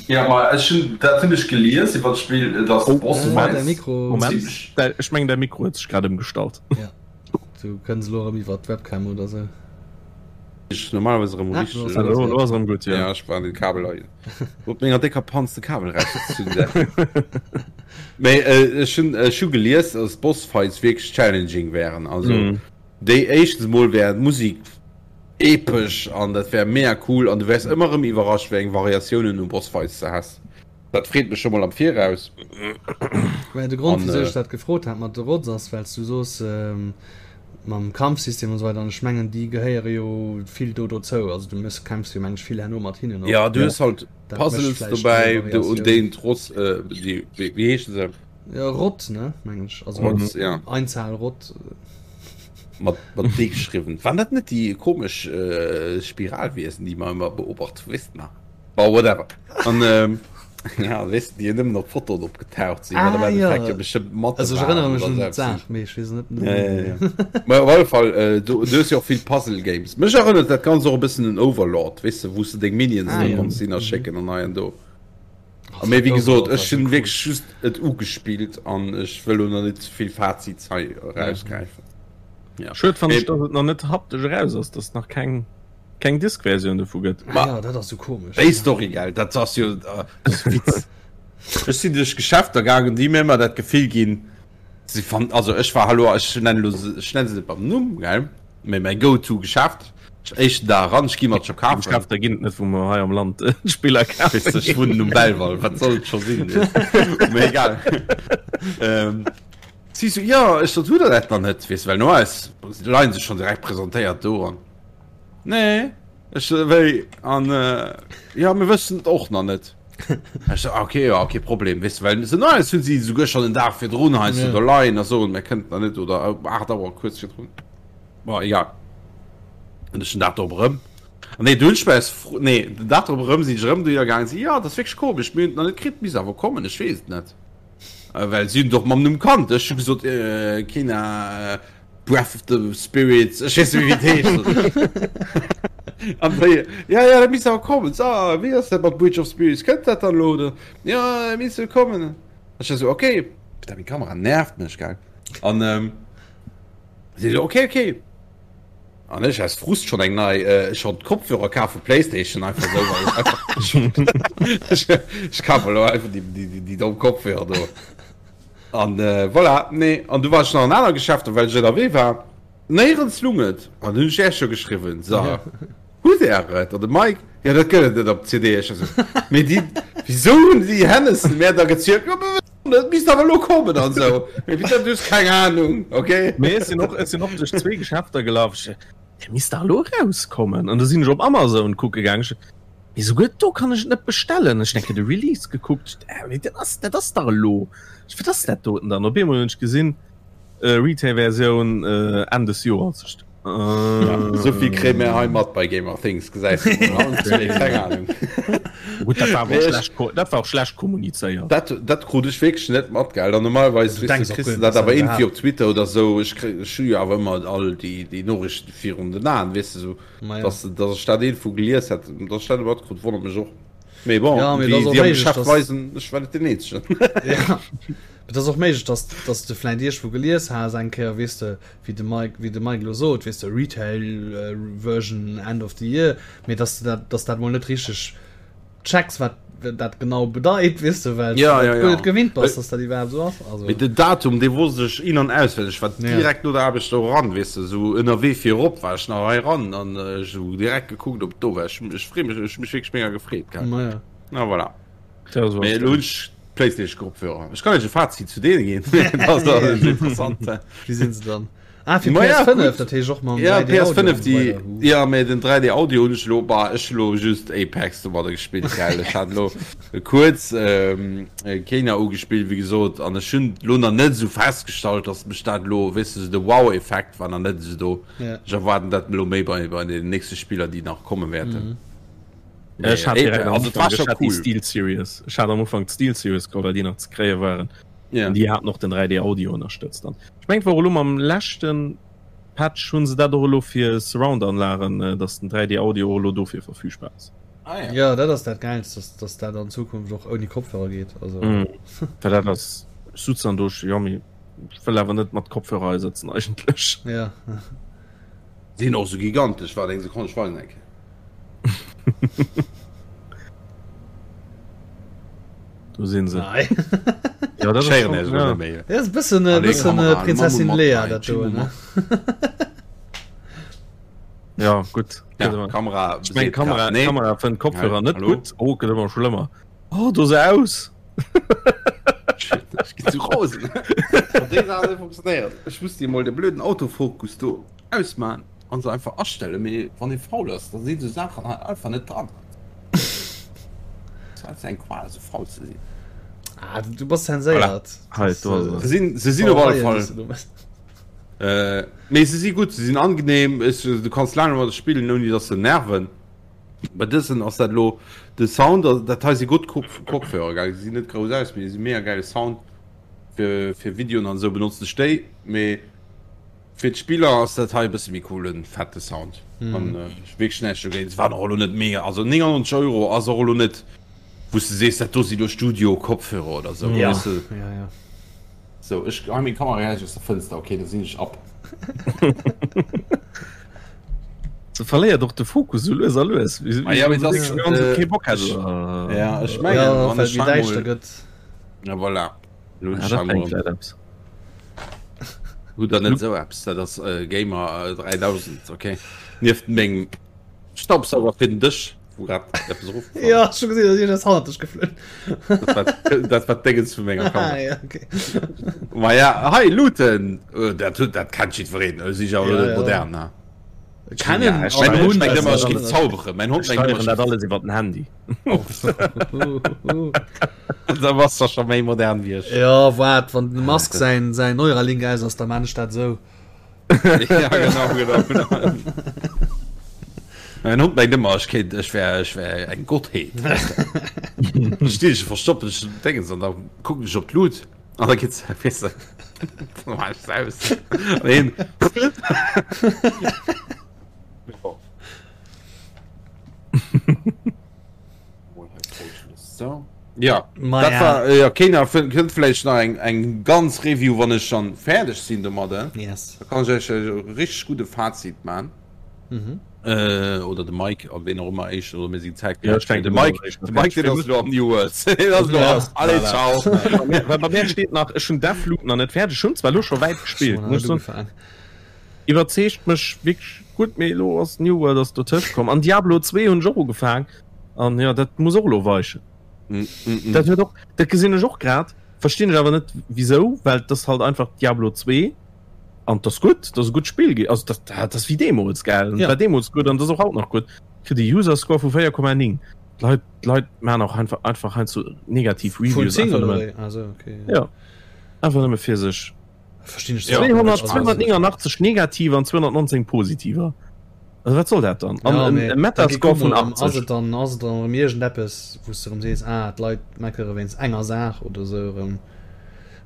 Ja ma ech hunn dat hunn ech gelies iwwer d'Spill, dass oh, Boss Moment, Mikro Moment, ech meng der Mikro huet sech grad ëmgestallt. Ja. Du kënns elo erëm iwwer d'Webcam oder sou. Ech normalerweis erëm ah, richteg. Elo elo ass erëm gutt, ja. Ja, ech war den Kabel hei. Op menger décker Panz de Kabel rausgezunn. Mee äh, ech hunn ech hu gelies, dass Bossfights wierklech challenging wären. Also mm. déi éischtens mol wär d'Musik epesch an dat wär mega cool an du wärs ëmmer erëm iwwerrascht, wéi eng Variatiounen u Bossfights de has. Dat freet mech scho mol am Viraus. Mä de Grond, wisou ech dat gefrot hat mat de Rods, ass, well s du soos, mam Kampfsystem an esou weider, an ech mengen, déi gehéiere jo vill do dozou. Also du méchs, kämpfs jo, meng ech, vill herno mat hinnen och. Ja, du hues halt Puzzles dobäi, un deenen d'Ross, déi, wéi heeschen se? Ja, Rott, ne, meng ech. Also Rods, ja. Einzahl Rott. Mat, mat D geschriwwen. Waren dat net déi komesch Spiralwiesen, déi mer ëmmer beobacht hu, weess de nach? Bon, whatever. An ähm, ja, weess de, déi nëmmen op Fotoen opgetaucht sinn, ah, wat am ja. Endeffekt jo bestëmmt Mathe Also ech erënnere mech un d'Saach, mee ech weess net. Ja, ja, ja. Mä op alle Fall, äh, du, du hues jo och vill Puzzle Games. Mech erënnert dat Ganzt och e bëssen un Overlord, weess de, wou s de deng Minions ah, do ja. konns hinner schécken an hei an do. Mee wéi gesot, ech hunn wierklech just et ugespillt an ech wëll lo nach net ze vill Fazits hei erausgräifen. Ja. Schued fannen ech, dass et nach net haptesch eraus ass, dass et nach keng keng Disk-Versioun dovu gëtt. Ma ja, dat ass sou komesch. Déi Story, gell, dat ass jo äh, Witz. Ech sinn duerch Geschäfter gaangen, déi mir ëmmer dat Gefill ginn, si fan, also ech war hallo, ech nennen lo se, ech nenne se net beim Numm, gell, mee mäi Go-to-Geschäft, ech éischten Dag eran, ech gi mat scho kafen. Geschäfter ginn et net, wou mer hei am Land Spiller kafe ginn. Ech wunnen um Belval, wat soll et scho sinn, mee egal. Ähm, si sou, jo, ech sot, hutt der dat nach net, weess, well normalerweis leien se schonn direkt presentéiert do an. Nee, ech wéi an jo, mir wëssen et och nach net. Ech so, okay, ja, okay, Problem, weess de, well se normalerweis hunn si souguer schonn en Dag virdrun heiansdo do leien a soen, mir kënnten nach net oder um 8 Auer kuerz virdrun. Bon, egal. An ech den Dag drop erëm. An nee, du hunn ech mech fro, nee, den Dag drop erëm sinn ech erëm dohinner gaangen, si, jo, dat ass wierklech komesch, mir hunn et nach net kritt, misst awer kommen, ech weess et net. Well si hunn et och mam Numm kannt. Ech hu gesot, Kena, Breath of the Spirits, ech weess net méi wéi et heescht. An déi, ja, ja, dat misst awer kommen. So, wéi ass dat mat Bridge of Spirits? Kënnt dat dann elo oder? Ja, dat misst jo kommen. Ech war sou, okay. Putain, meng Kamera nervt mech, gell. An ähm, si sou, okay, okay. An ech aus Frust schon eng nei, äh, schon d'Kopfhörer kaf vu Playstation, einfach sou, well ech einfach, ech, ech kafe elo einfach déi, déi, déi, déi domm Kopfhörer do. An voilà, nee, an du war ech nach an aner Geschäfter, well ech ënnerwee war. Néierens lung et. An hunn ech Iech jo geschriwwen, so, hutt Är et? An de Mike, jo, dat gëtt et net op CD. Ech esou, mee déi, wisou hunn déi Hennessen mär da gezielt? Jo, mir wëssen net, et misst awer elo kommen an esou. Mee wéi dat, du hues keng Anung, okay? Mee ech sinn och, ech sinn och duerch zwee Geschäfter gelaf. Ech, dat misst dach elo erauskommen. An du sinn ech op Amazon kucke gaang. Ech, Mee souguer do kann ech et net bestellen. Ech denke de Release gekuckt, äh, dat ass, dat ass dach elo. Wat ass dat doten dann? Op eemol hunn ech gesinn, äh, Retail-Versioun äh, Enn des Joers. Ech, äh, Ja, souvill kréie mir hei mat bei Gamer Things, gesäis du mol. Keng Ahnung. Gutt, dat war awer och schlecht, dat war och schlecht kommunizéiert. Dat, dat krut ech wierklech net mat, gell. An normalerweis, Du weess denks du, och kriss guer du net, dat dass dat awer iergendwéi iwwerhaapt. op Twitter oder sou. Ech kréi, ech hu jo awer ëmmer all déi, déi Noriichten virun den Aen, weess du, sou. Ma ja. Dass, dass ech dat irgendwou gelies hätt, dass ech dat net matkrut, wonnert mech och. Mee bon, Ja, mee wéi et ass och si am méiglech, Geschäft dass- weisen, ech war net den Eenzegen. Ja. Et ass och méiglech, dass, dass du vläicht iergendwou gelies has eng Kéier, weess de, wéi de Mike, wéi de Mike elo sot, weess de, Retail äh, Version End of the Year, mee dass du dat, dass dat mol net richteg checks, wat dat genau bedeit, weess de, well Ja, du ja, dat ja. guer net gewinnt bass, dass dat iwwerhaapt esou ass. Also, Mee den Datum, dee wosst ech in an auswenneg. Ech war Ja. direkt no der Aarbecht do eran, weess de, esou ënnerwee fir erop war ech nach hei eran an ech hu direkt gekuckt, ob et do war. Ech, ech free mech, ech hu mech wierklech mega gefreet, gell. ma ja. Na voilà. Ja, so Mee ass elo hunn dat. ech PlayStation-Kopfhörer. Ech kann iech e Fazit zu deene ginn. Dat ass Ja. interessant. Wéi sinn se dann? Ah, fir Ma ja, PS5, gut. dat heescht och mam Ja, 3D Audio PS5 an esou déi weider. Huh. ja mee den 3D Audio hunn ech elo bah ech hu elo just Apex domadder gespillt gell. Ech hat elo kuerz ähm, Kena ugespillt wéi gesot an ech hunn elo nach net esou festgestallt, dass mech dat elo weess de sou de Wow-Effekt war nach net esou do. Ja. Ech erwaarden dat elo méi bei bei den nächste Spiller déi nach komme wäerten. Mhm. Ech hat direkt am Also et war Ufank, scho ech hat déi cool. Steel Series. Ech hat am Ufank d'Steel Series geholl, well déi nach ze kréie waren. Ja. An déi haten och den 3D Audio ënnerstëtzt an ech mengen et war och elo mam leschten Patch hunn se dat och elo fir Surround Anlagen äh, dass den 3D Audio och elo dofir verfügbar ass. Ah, ja. Ja, dat ass dat Gäilst, dass, dass dat an Zukunft och ouni Kopfhörer geet. Also, Mm. Well dat ass ech sutz dann do ech jo mee ech wëll awer net mat Kopfhörer hei sëtzen eigentlech. ja. Sinn och sou gigantesch, waart eng Sekonn, ech weisen eng Kéier. Do sinn se. Nei. Ja, dat ass Schéieren schon, är ja. net méi. Dat ass e bëssen, e Allez, bëssen Kamera, Prinzessin Mamma Leia, mat dat do, ne? Ja, gutt. Ja, Kamera, Ich mein, Kamera, nee. Kamera fënnt Kopfhörer Ja, net hallo? gutt. Oh, gëtt ëmmer schlëmmer. Oh, do se aus. Shit, ech ginn zu rosen. Déi Saach funktionéiert. Ech muss dir mol de blöden Autofokus do ausmachen an se einfach astellen, mee wann ee faul ass, da sinn sou Saachen hei einfach net dran. Dat ass eng Qual sou faul ze sinn. Ah, du bass zenséiert. Hei, do ass Se sinn, se sinn op alle Fall. Äh, mee se si gutt, se sinn angenehm, es, du kanns laang domadder spillen, ouni dass se nerven. Bei dësen ass dat elo de Sound, also dat hei si gutt Kopf Kopfhörer, gell, se sinn net grouss aus, mee se si mega gäile Sound. Fir, fir Videoen an esou benotzen ech déi, mee Fir d'Spiller ass dat hei e bësse méi coolen, fette Sound. An wierklech näischt dogéint. Se waren och elo net mega, also 99 Euro ass och elo net, wou. Wou s de sees, dat do si lo Studio-Kopfhörer oder sou, Ja, weess de. ja, ja. Sou, ech geheien meng Kamera gläich aus der Fënster, okay, da sinn ech ab. Se verléiert och de Fokus sou lues a lues. Ah ja, mee das, äh, kee Bock hätt. Ja, ech mengen, Ja, wann well ech méi hei däischter mol, gëtt. ja voilà, lo hunn Ja, ech dat hei bréngt mol, vläit eppes. hutt der net sou eppes, dat ass Gamer 3000, okay, nieft mengem Staubsauger fir den Dësch. Wou grad eppes erofgefall Ja, ech hu gesinn, dass iergendes hannert dech geflunn. Dat war, dat war d'Déngens vu menger Kamera. Ah, ja, okay. Ma ja, hei, Looten! Äh, dat, huet- dat kennt jiddwereen. Äh, si ja Ja, ja. modern, ne? Kennen Ja, ech Mein Mein Hond Hund mengt ëmmer, ech also- géif zauberen. Mein Hond Ech mengt ëmmer, steieren ech dat géif alles iwwer den Handy. Da bass der scho méi modern wéi ech. Ja, waart, wann den Musk säin, säin Neuralink aus ass, da man ech dat esou. ja, genau, genau, genau. Mein Hund mengt ëmmer, ech kéint, ech wär, ech wär eng Gottheet. Stinn ech verstoppen ech Dingens an da kucken ech op d'Lut an da geht's, weess de, da mach ech aus. An hien. So. Ja, Ma dat ja. war äh, ja, keiner kënnt vläicht nach eng eng ganz Review, wann ech dann fäerdeg sinn domadder. Yes. Da kann ech iech e richtig gudde Fazit man. Mhm. Äh, oder de Mike an ween och ëmmer éischt oder mir sinn Zäit Ja, ech de denken, Mike, éischt de Mike deen ass lo am New World. Deen ass lo Ja. am Allez, ciao. Bei mir, bei mir steet nach, ech hunn Deathloop nach net fäerdeg, ech hunn zwar lo scho wäit gespillt, Schon muss ech soen, ugefaangen. iwwerzeegt mech wierklech gutt, mee elo ass New World ass dotëscht komm an Diablo 2 hunn ech och ugefaang an jo dat muss och elo weichen. Mm, mm, mm. Dat huet och, dat gesinn ech och grad, verstinn ech awer net wisou, well dat ass halt einfach Diablo 2 an dat ass gutt, dat ass e gutt Spill gi, also dat dat ass wéi deemools gell, Ja. war deemools gutt an dat ass och haut nach gutt, kritt e User Score vu 4,9. D'Leit d'Leit man och einfach einfach heiansdo negativ Vun Reviews 10 einfach oder nëmme, wéi? Also okay. ja einfach nëmme fir sech. Verstinn ech zwar 200, 289 negativer an 219 positiver. Also wat soll dat dann? An Ja, en mee e Metascore vun Ass 80. et dann ass et dann erëm iergendeppes, wou s de erëm sees, ah d'Leit meckere wéinst enger Saach oder esou erëm.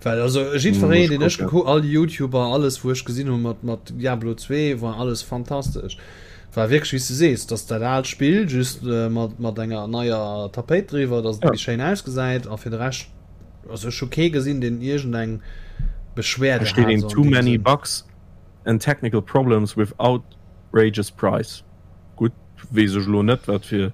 Well also jiddwereen, Muss deen ech kucken. gekuckt, all déi YouTuber, alles wou ech gesinn hu mat mat Diablo 2 war alles fantastesch. War wierklech wéi s de sees, dass dat aalt Spill just mat mat enger neier Tapéit driwwer, dass et Ja. méi schéin ausgesäit a fir de Rescht Also ech hu kee gesinn deen iergend eng Beschwerde Da steet hat een so an too deem many Sënn. bugs and technical problems with outrageous price. Gutt, weess ech elo net wat fir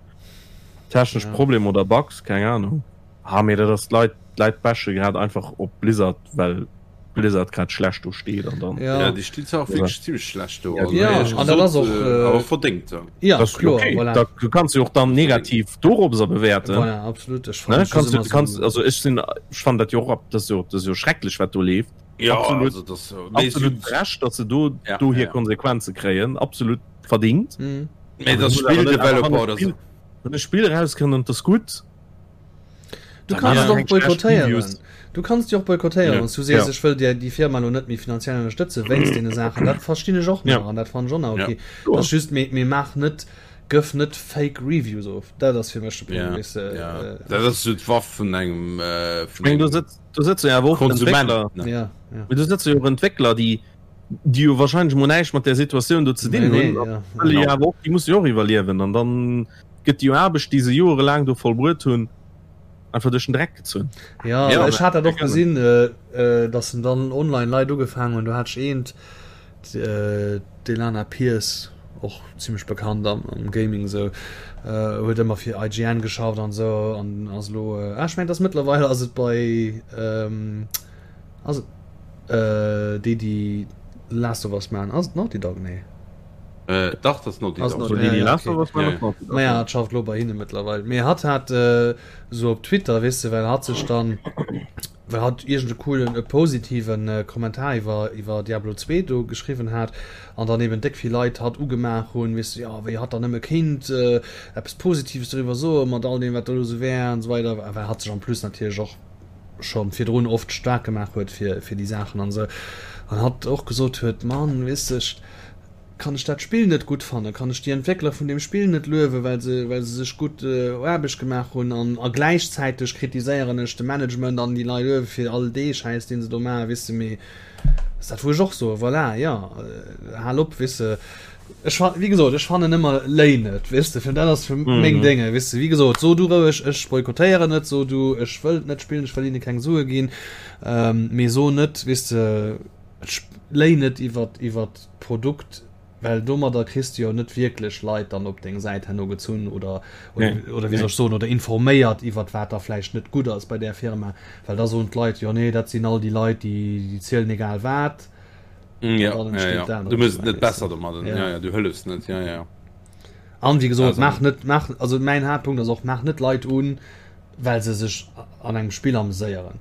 technesch Ja. Problemer oder Bugs, keng Ahnung. Ah mee dat ass d'Leit, d'Leit bashe grad einfach op Blizzard well Blizzard grad schlecht do steet an dann. Ja. Ja, déi steet zwar och wierklech zimmlech schlecht do. Ja, Also, Ja, éierlech an dat ass gesot, och, äh, äh, awer verdéngt. Ja. Ja, Das ist kloer, okay. voilà. Da du kannst du och dann negativ dorobber bewerten. Voilà, absolut. Ech Ne? fannen Kannst du, ëmmer kannst, so, also ech sinn, ech fannen dat jo och ab, dat ass jo, dat ass jo schrecklech wat do leeft. Ja, Absolut. also das, mee Absolut si- recht, datt se do, Ja, do ja, hir ja. Konsequenze kréien, absolut verdingt. Mhm. Mee das Muss awer net- awer Spill-Developer wann e oder so. Spill- Wann e Spill rauskënnt an dat ass gutt, Du Da kannst ja, et och eng schlecht boykottéieren. Reviews. Du kannst déi och boykottéieren, Ja. wann s du sees, Ja. ech wëll dir déi Firma lo net méi finanziell ënnerstëtze wéinst deene Saachen. Dat verstinn ech och nach Ja. an dat fannen ech och nach Ja. okay. Ja. Dat ass just, mee, mee maach net, gëff net fake Reviews of. Dat ass fir mech de Punkt, Ja, weess de. ja. Äh, Dat ass so d'Waff vun engem, äh, vun Ech meng, do engem sëtz, do sëtze jo awer och Konsument. Entwéckler, Ne? ja, ja. mee do sëtze jo och Entwéckler, déi, déi jo wahrscheinlech mol näischt mat där Situatioun do ze dinn Nee, nee, hunn. ja. Wëlle jo Genau. awer och, déi musse jo och iwwerliewen an dann gëtt déi Aarbecht, déi se jorelaang do vollbruet hunn, einfach duerch den Dreck gezunn. Ja, Ja, ech hat dat och gerne. gesinn, äh, äh, dass en dann online Leit ugefaangen hunn. Do hat ech eent, äh, d'Elana Pierce, och zimmlech bekannt am, am Gaming sou, äh, huet ëmmer fir IGN geschafft an sou an ass elo, äh, ah, ech mengen, dass mëttlerweil ass et bei, ähm, ass et, äh, déi, déi Last of Us maachen, ass et Naughty Dog? Nee. Äh, dach, das Naughty Ass Dog. Naughty So, déi, Ja, déi ja, Last okay. of Us Ja, maachen, ja. ass Naughty Dog. Naja, hat schafft lo bei hinne mëttlerweil. Mee hatt hat äh, sou op Twitter, weess de, well hatt sech dann, well hatt iergend e coolen, e positiven äh, Kommentar iwwer, iwwer Diablo 2 do geschriwwen hat an dann eben déck vill Leit hatt ugemaach hunn, weess de, jo, wéi hatt dann nëmme kéint äh, eppes Positives doriwwer soen, mat all deem, wat do elo sou wär an esou weider, well hatt sech en plus natierlech och scho virdrun oft staark gemaach huet fir, fir déi Saachen an esou. An hatt och gesot huet, Mann, weess de, ech, Kann ech dat Spill net gutt fannen? Kann ech déi Entwéckler vun deem Spill net luewen, well se, well se sech gutt Aarbecht gemaach hunn? An, a gläichzäiteg kritiséieren ech de Management an déi Leit uewe fir all dee Schäiss, deen se do maachen, weess de. Mee ass dat, wou ech och soen, voilà, jo, hal op, weess de. Ech fa wéi gesot, ech fannen ëmmer léi net, weess de, fir dat ass fir mm. meng Dinge, weess de, wéi gesot, so du roueg, ech boykottéieren net, so du, ech wëll net spillen, ech wëll hinne keng Sue ginn, ähm, mee so net, weess de, léi net iwwer iwwer d'Produkt, well domadder kriss du jo net wierklech Leit dann op deng Säit herno gezunn oder oder, nee. oder wéi soll ech soen, oder informéiert iwwer wat da vläicht net gutt ass bei där Firma, well da soen d'Leit, jo nee, dat sinn all déi Leit, déi, déi zielen egal wat. Mm, ja, ja, ja. Du muss net besser domadden. Ja. Ja, ja, du hëllefs net. Ja, ja. An wie gesot, mach net mach also mäin Haaptpunkt ass och mach net Leit un, well se sech an engem Spill ameséieren.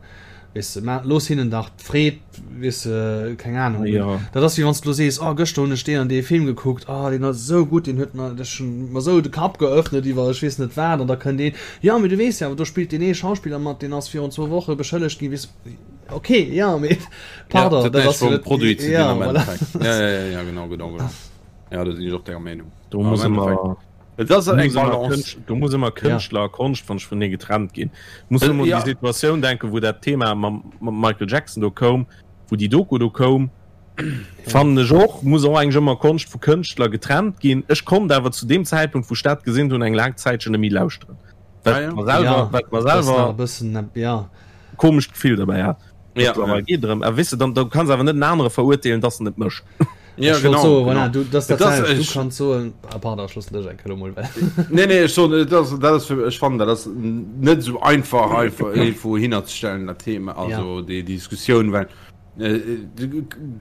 Weess de, ma looss hinnen dach d'Freed, weess de, keng Ahnung. Ja. Dat ass wéi wann s du lo sees, oh gëschter hunn ech deen an dee Film gekuckt, oh deen ass esou gutt, deen huet mer dech mer esou de Kapp geöffnet iwwer ech weess net wat an da kënnt een, jo mee du weess jo awer do spillt deen ee Schauspiller mat, deen ass virun zwou Woche beschëllegt ginn, weess Ok, ja, mee pardon, ja, dat ass jo net Produit ze ja, voilà. ja, ja, ja, ja, genau, genau, genau. Ja, da sinn ech och denger Meenung. Do muss ëmmer Et ass eng Balance. Do muss ëmmer Kënschtler a Konscht wann ech vun getrennt ginn. Muss ëmmer ja. déi Situatioun denken, wou dat Thema mam, mam Michael Jackson do koum, wou déi Doku do koum. Fannen ech och, muss och eigentlech ëmmer Konscht vu Kënschtler getrennt ginn. Ech konnt awer zu deem Zäitpunkt, wou ech dat gesinn hunn, eng laang Zäitchen net méi lauschteren. Well ja, ja. selwer, ja, well mer selwer e bëssen, ja. Komescht Gefill derbäi hat. Ja, ja. Geht drëm. A wisse dann du kannst awer net en anere verurteelen, dass en et mécht. Ja, genau, so, genau. Voilà, du, das, das, das, das, du kannst so ah, pardon, Schluss lech eng Kéier mol Nee nee ech so, das, das ist für, ech fand dat ass net so einfach einfach irgendwo hinnerzestellen dat Thema also ja. déi Diskussioun well äh,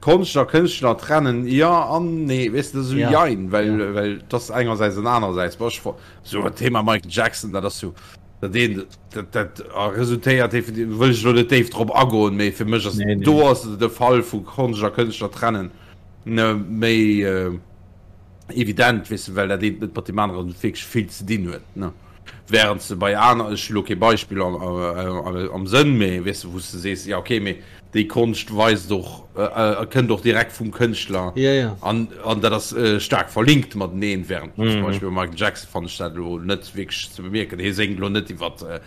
Konscht a Kënschtler trennen ja an nee weess de so ja. jein well ja. well das engersäits an anersäits so Thema Michael Jackson dat ass so Dat een, dat, dat resultéiert, wëll ech elo net déif drop agoen, mee fir mech ass nee, nee. do ass de Fall vu Konscht a Kënschtler trennen ne, méi äh, evident, weess de, well dat eent net mat deem aneren wierklech vill ze dinn huet, ne. Während se bei aner, ech hu lo kee Beispill am, am, am Sënn, mee weess de, wou s de sees, ja okay, mee Déi Konscht weist och, kënnt och direkt vum Kënschtler ja, ja. an, an dat ass äh, staark verlinkt mateneen, während mm. zum Beispill bei Michael Jackson fand ech dat elo net wierklech ze bemierken. Hie séngt elo net iwwer äh,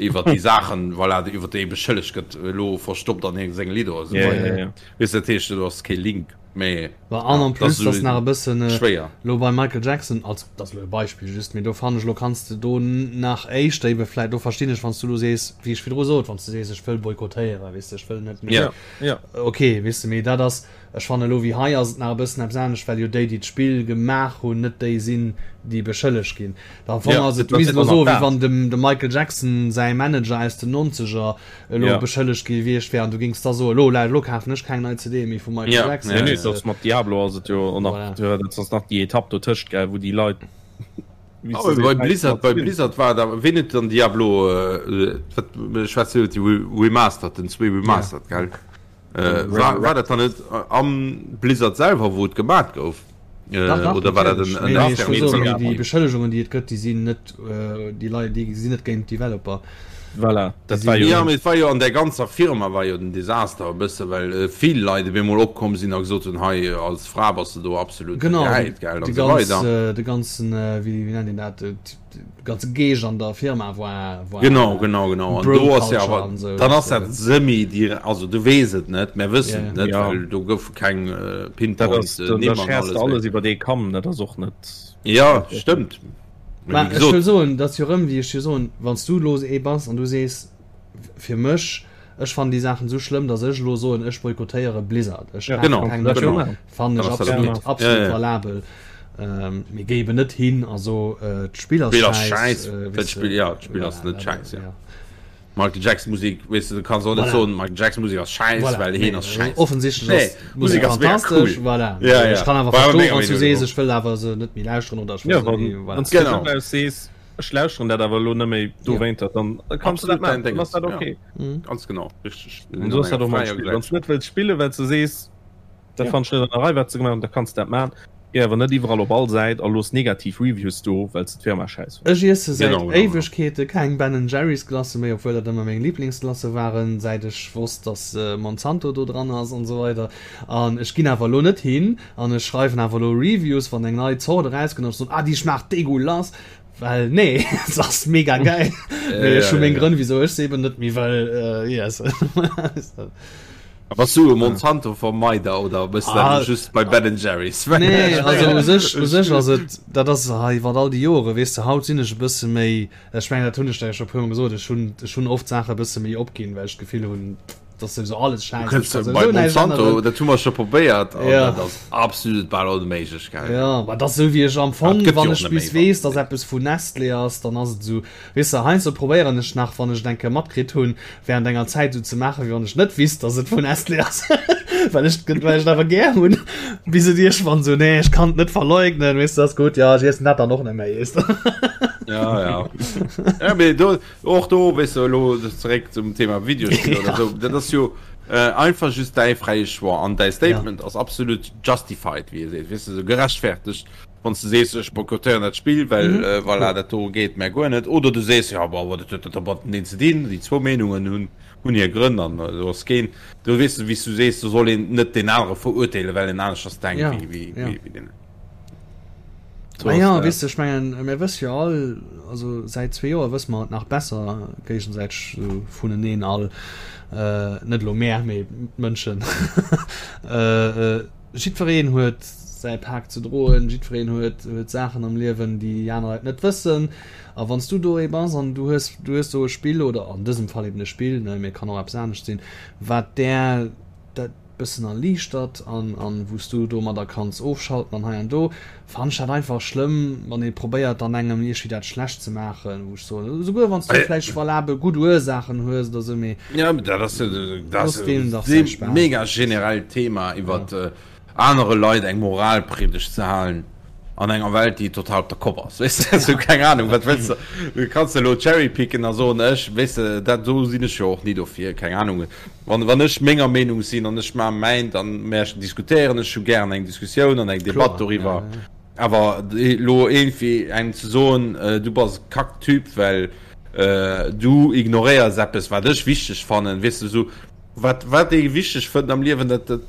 iwwer déi Saachen, voilà, iwwer déi e beschëllegt gëtt, elo verstoppt an senge Lidder oder sou. Ja, ja, ja. Weess dat heescht, do ass kee Link. Mee Wa an en plus das ass nach e bëssen äh, schwéier. Lo beim Michael Jackson als dat ass lo e Beispill just, mee do fannen ech lo kanns de do nach éischter ebe vläit do verstinn ech wann s du lo sees wéi ech virdru sot, wann s du sees ech wëll boykottéieren, weess de ech wëll net méi Ja. Ja. ok weess de, mee dat ass ech fanne lo wéi hei ass et nach e bëssen eppes anescht, well jo déi déi d'Spill gemaach hunn net déi sinn déi beschëllegt ginn. Am Fong Ja, ass et dat misst ass elo och nach soe wéi dat. wann dem dem Michael Jackson säi Manager aus den Nonzeger elo Ja. beschëllegt gi wiescht wär an du gings da soen, elo elo kafen ech keng nei CD méi vum Michael Ja, Jackson. Nee, ja, nee, ja. das mat Diablo ass et jo och nach, Voilà. ja, dat ass nach déi Etapp dotëscht, gell, wou déi Leit, wéi Oh, se bei seet, Blizzard, bei Blizzard war da ween huet dann Diablo äh, wat schwätzt iwwer déi Re- Remastered, den zwee Remastered, gell? Äh, war, war dat dann net am Blizzard selwer, wou et gemat gouf? Äh, Dach, dach, oder war dat natierlech. en, Nee, en nee, ech externen wëll soen, Team? déi, déi Beschëllegungen, déi et gëtt, déi sinn net, äh, déi Leit, déi sinn net géint d'Developer. Voilà, dat Déi war sinn, jo Ja, mee et war jo an der ganzer Firma war jo den Desaster e bësse, well äh, vill Leit op eemol opkomm sinn a gesot hunn, hei als Fra bass de do absolut genau, de, gehäit, gell, an de esou ganz, weider. äh, de ganzen, äh, wéi, wéi nennt een dat, äh, ganze Geescht an der Firma war, war Genau, genau, genau. An do ass ja Bro-Culture awer, an sou. dann ass dat semi dir, also du weess et net, mär wëssen Ja, et net, ja. well do goufe keng äh, Dat Pinpoint ass, äh, da, da Nimm an scherst alles. du alles iwwer dee Kamm, dat ass och net. Ja, stëmmt. Mee Mä wéi ech wëll gesot, soen, dat ass jo rëm, wéi ech jo soen, wann s du elo ee bass an du sees, fir mech, ech fannen déi Saachen esou schlëmm, datt ech elo soen, ech boykottéiere Blizzard, ech Ja, kafe genau, keng dat méi, genau. jo. fannen Dann ech ass dat absolut, okay. Ja, absolut ja. valabel. Ähm, mee géi eben net hin a so, äh, d'Spill ass D'Spill ass schäiss, schäiss. äh, Dat weess de, Spill, ja, d'Spill ass voilà, net dat, schäiss, ja. ja. Michael Jackson Musik, weess de, du kanns och net Voilà. soen, Michael Jackson Musik ass schäiss, Voilà, well heen nee, ass schäiss. offensichtlech Nee, ass d'Musek Musek ass mega fantastesch, cool. voilà. Ja, Ech ja. kann awer War awer verstoen, menger wann s du Meenung sees, no. ech wëll awer se net méi lauschteren oder ech wëll Ja, se wann, méi, voilà. wann s du Genau. vun aus sees, ech lauschteren dat awer elo net méi dowéinter, dann kanns du dat Absolut dein maachen, dann ass Dinges. dat Ja. okay. Mhm. Ganz genau, richteg. Und so ass dat och mam Spill. Wann s du net wëlls spillen, well s du sees, dat Ja. fannt ech net an der Rei, wat se gemaach hunn, da kanns du dat maachen. Géi awer net iwwerall op all Säit a looss negativ Reviews do, well s de d'Firma schäiss fënns. Ech iesse säit Genau, genau, genau. Éiwegkeete keng Ben Jerry's Glacë méi, obwuel dat ëmmer meng Liblingsglacë waren, säit ech wosst, dass Monsanto do dran ass an esou weider. An ech ginn awer elo net hin an ech schreiwen awer elo Reviews, wann eng nei Zort erauskënnt, an ech soen, ah déi schmaacht degueulass, well nee, se ass mega gäil. Mee ech hu meng Grënn, wisou ech se eben net méi wëll iessen. Bass du e Monsanto-Vermeider oder bist ah, du just bei Ben Jerry's? Nee, also u sech, u sech ass et, dat ass hei iwwer all déi Jore, weess de, haut sinn ech e bësse méi, ech mengen, dat hunn ech der jo scho e puermol gesot, ech hunn, ech hunn oft Saache e bësse méi opginn, well ech d'Gefill hunn, dass souwisou alles schäiss ass, kann souwisou näischt änneren. Dat hu mer scho probéiert an ja. dat ass absolut bal onméiglech, gell? Ja, ma dat ass esou wéi ech am Fong, wann ech bis weess, dass eppes vun Nestlé ass, dann ass et esou, Weess de, heiansdo probéieren ech nach, wann ech et eng Kéier matkritt hunn, während enger Zäit esou ze maachen, wéi wann ech net wisst, dass et vun Nestlé ass, well ech well ech et awer gär hunn, bis et iergendwann esou, nee, ech kann et net verleugnen, weess de, ass gutt, jo, ech iessen dat dann och net méi, weess de. Ja, ja. Ja, mee do, och do, weess de, elo zeréck zum Thema Videospiller oder esou, dat ass jo einfach just däi fräie Choix an däi Statement ass absolut justified, wéi ee seet, weess de, esou gerechtfertegt. Wann s de sees, ech boykottéieren dat Spill, well mm -hmm. voilà, dat do geet mär guer net, oder du sees, ja, bon, dat huet dat mateneen ze dinn, déi zwou Meenungen hunn hunn hir Grënn an äh, do ass keen, do weess du, wéi s du sees, do soll een net deen anere verurteelen, well en aneschters denkt ja. wéi, wéi, ja. wéi, wéi deen. So ah ja, weess du, ech mengen, mir wësse jo all, also säit zwee Joer wësse mer et nach besser géigesäiteg so vuneneen all, äh, net elo mär, mee d'Mënschen. äh, äh, Jiddwereen huet säi Pak ze droen, jiddwereen huet, huet Saachen am Liewen, déi déi aner Leit net wëssen. A wann s du do ee bass an du hues, du hues do e Spill, oder an dësem Fall eben e Spill, ne, mee et kann och eppes anescht sinn, wat där dat bëssen erliichtert an, an wou s du domadder kanns ofschalten an hei an do, Fannen ech dat einfach schlëmm, wann ee probéiert dann engem iergwéi dat schlecht ze maachen, wou ech soen, esouguer wann s du vläicht valabel gutt Ursaachen hues oder esou, mee Ja, dat ass jo dat ass e mega generellt Thema, iwwer anere Leit eng Moralpriedegt ze halen an enger Welt, déi total op der Kopp ass, weess de, esou keng Ahnung, wat wëlls de, du kanns elo cherrypicken a soen, ech, weess de, dat do sinn ech jo och ni dofir, keng Ahnung. Wann, wann ech menger Meenung sinn an ech maache mäin, dann mä ech diskutéieren ech jo gären eng Diskussioun an eng Debatt doriwwer. Awer elo iergendwéi engem ze soen, du bass e Kacktyp, well du ignoréiers eppes, wat ech wichteg fannen, weess de, esou, wat, wat ee wichteg fënnt am Liewen, dat, dat,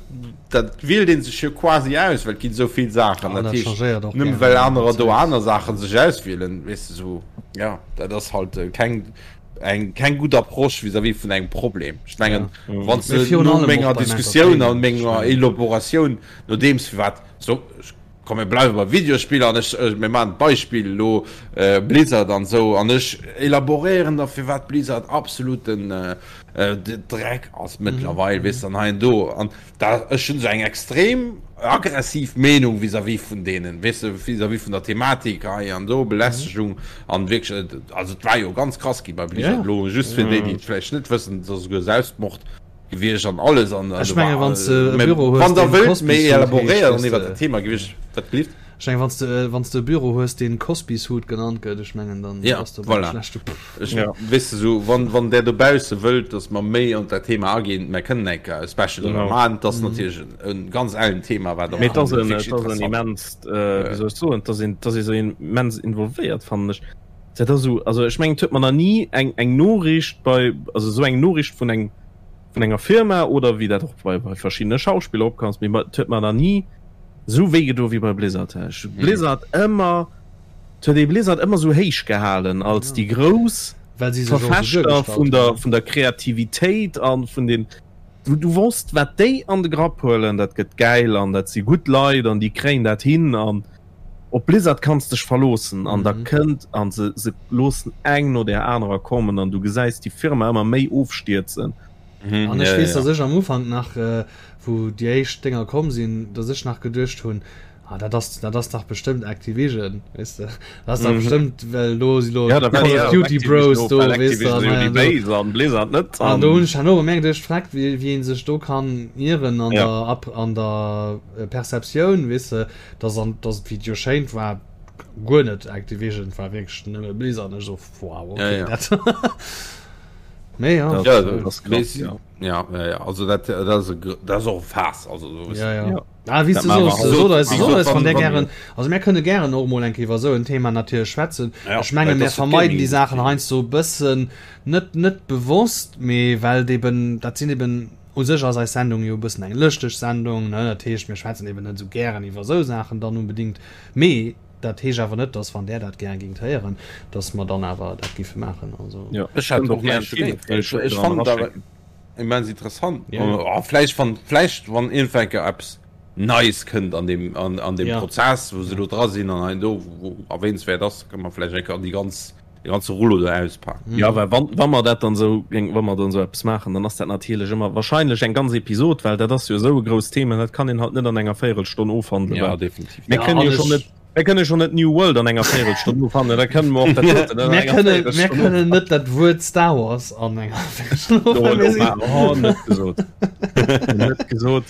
dat wielt ee sech jo quasi aus, well et ginn esou vill Saachen. Dat heescht, nëmme well anerer do aner Saache sech auswielen, weess de, esou, jo, dat ass halt keng. eng keng gutt Approche vis-à-vis vun engem Problem. Ech mengen ja. wann du no menger Diskussioun an menger Elaboratioun nodeems wat so komm mir bleiwe bei Videospiller an ech äh, mir maachen d'Beispill lo äh, Blizzard an sou an ech elaboréieren da firwat Blizzard absoluten äh, äh, Dreck ass mëttlerweil mm -hmm. weess an hei an do an Da, ech hunn esou eng extrem aggressiv Meenung vis-à-vis vun deenen, weess de, vis-à-vis vun der Thematik hei an do, Belästegung an wierklech, also et war jo ganz krass gi bei Blizzard elo, just fir déi, déi et vläicht net wëssen, et ass esouguer Selbstmord gewiescht an alles an Ech menge wann s de e Büro hues, wann der wëllt méi elaboréieren iwwer dat Thema, géif ech wat gelift? Ech mengen, wann s de, wann s de e Büro hues, deen Cosby Suit genannt gëtt, ech mengen, dann ja, bass de op engem schlechte. Ech, ja. Weess de, sou, wann, wann där dobausse wëllt, dass mer méi an dat Thema aginn, mer kënnen eng Kéier e Special driwwer maachen. Dat ass natierlech en, e ganz ellen Thema, wat am Mee et ass en, et ass en immenst, wéi soll ech soen, et ass een, et ass ee sou immens involvéiert, fannen ech. Dat ass esou, also ech mengen, et huet mer nach ni eng, eng Noriicht bei, also esou eng Noriicht vun engem, vun enger Firma oder wéi dat och bei, bei verschiddene Schauspiller opkomm ass, mee et huet mer nach ni Sou wéi gedo wéi bei Blizzard. Ech hu Blizzard ëmmer, et huet ee Blizzard ëmmer sou héich gehalen als déi grouss Verfechter vun der, vun der Kreativitéit an vun den, du, du wosst wat déi an de Grapp huelen, dat gëtt gäil an dat si gutt Leit an déi kréien dat hin an op Blizzard kanns dech verloossen an da kënnt an se, se loossen eng no där anerer kommen an du gesäis déi Firma ëmmer méi ofstierzen. An ech weess, dass ech am Ufank nach, wou déi éischt Dénger komm sinn, dass ech nach geduecht hunn, ah, dat ass, dat ass dach bestëmmt Activision, weess de, dat ass dach bestëmmt, well do si lo ja, Call of Duty Bros do, weess de, an hei an do. An Blizzard net. An do hunn ech herno bemerkt, ech freck, wéi, wéi ee sech do kann ieren an der, Ap-, an der Perceptioun, weess de, dass an, dass et, wéi et jo schéint war, guer net Activision, et war wierklech nëmme Blizzard, an ech esou, wow, okay, dat. Mee ja. Ja, dat ass krass, ja. Ja, ja, ja, also dat, dat ass, dat ass och e Faass, also so ja, ja. ja. Ah, wéi du soos, so, so, so, so, wann der gären, also mir kënne gären och mol eng Kéier iwwer esou en Thema natierlech schwätzen. Ja, ech menge mir vermeiden déi Saachen heiansdo e bëssen, net, net bewosst, mee well et eben, dat sinn eben, u sech ass eis Sendung jo e bëssen eng lëschteg Sendung, ne, dat heescht mir schwätzen eben net esou gären iwwer esou Saachen dann unbedingt, mee Dat heescht awer net, dass wann Där dat gär gingt héieren, dass mer dann awer dat giffe maachen. Also. Jo, ech hätt och näischt dogéint. Ech, ech fannen et awer. immens interessant. Ja. Oh, vläicht wann vläicht wann iergendwann eng Kéier eppes Neies kënnt an deem an, an deem ja. Prozess, wou se do dra sinn an hei do wou erwähnenswäert ass, kann man vläicht eng Kéier déi ganz de ganze Rullo do auspaken. Mhm. Ja, well wann, wann mer dat dann sou wann mer dann sou eppes maachen, dann ass dat natierlech ëmmer wahrscheinlech eng ganz Episod, well dat ass jo esou e grousst Thema, dat kann een halt net an enger Véierelstonn ofhandelen. Ja, definitiv. Mir kënnen jo schonn net Mir kënne schon net New World an enger Véierelstonn ofhandelen, da kënnen mer och dat doten an enger Véierelstonn Mir kënnen net dat Wuert Star Wars an enger Véierelstonn ofhandelen. Oh, net gesot. Net gesot.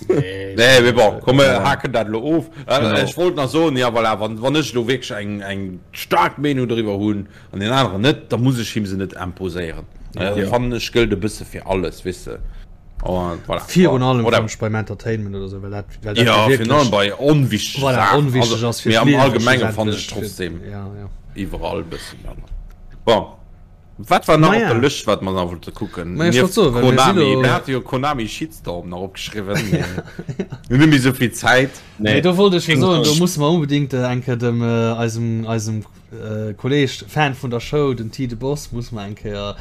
Nee, mee bon, komm mir haken dat elo of. Ech wollt nach soen, ja voilà, wann, wann ech elo wierklech eng, eng staark Meenung doriwwer hunn an deen aneren net, da muss ech him se net imposéieren. Ja. Fannen ech gëllt e bësse fir alles, weess de. Oh, voilà. Virun allem oder, beim Entertainment oder so, well dat, well dat ja, virun allem bei onwichtige voilà, Sachen. onwichtig ass fir am Allgemengen fand ech trotzdem ja, ja. iwwerall bëssen. Bon. Wat war nach op der Lëscht, wat mer nach wollte kucken? Ma ech wollt soen, well mir si lo. Mir hate jo Konami Shitstorm nach opgeschriwwen. Mir hunn net méi esou vill Zäit. Nee, do wollt ech jo soen, do musse mer unbedingt eng Kéier dem eisem, eisem Kolleg, Fan vun der Show, den T de Boss, musse mer eng Kéier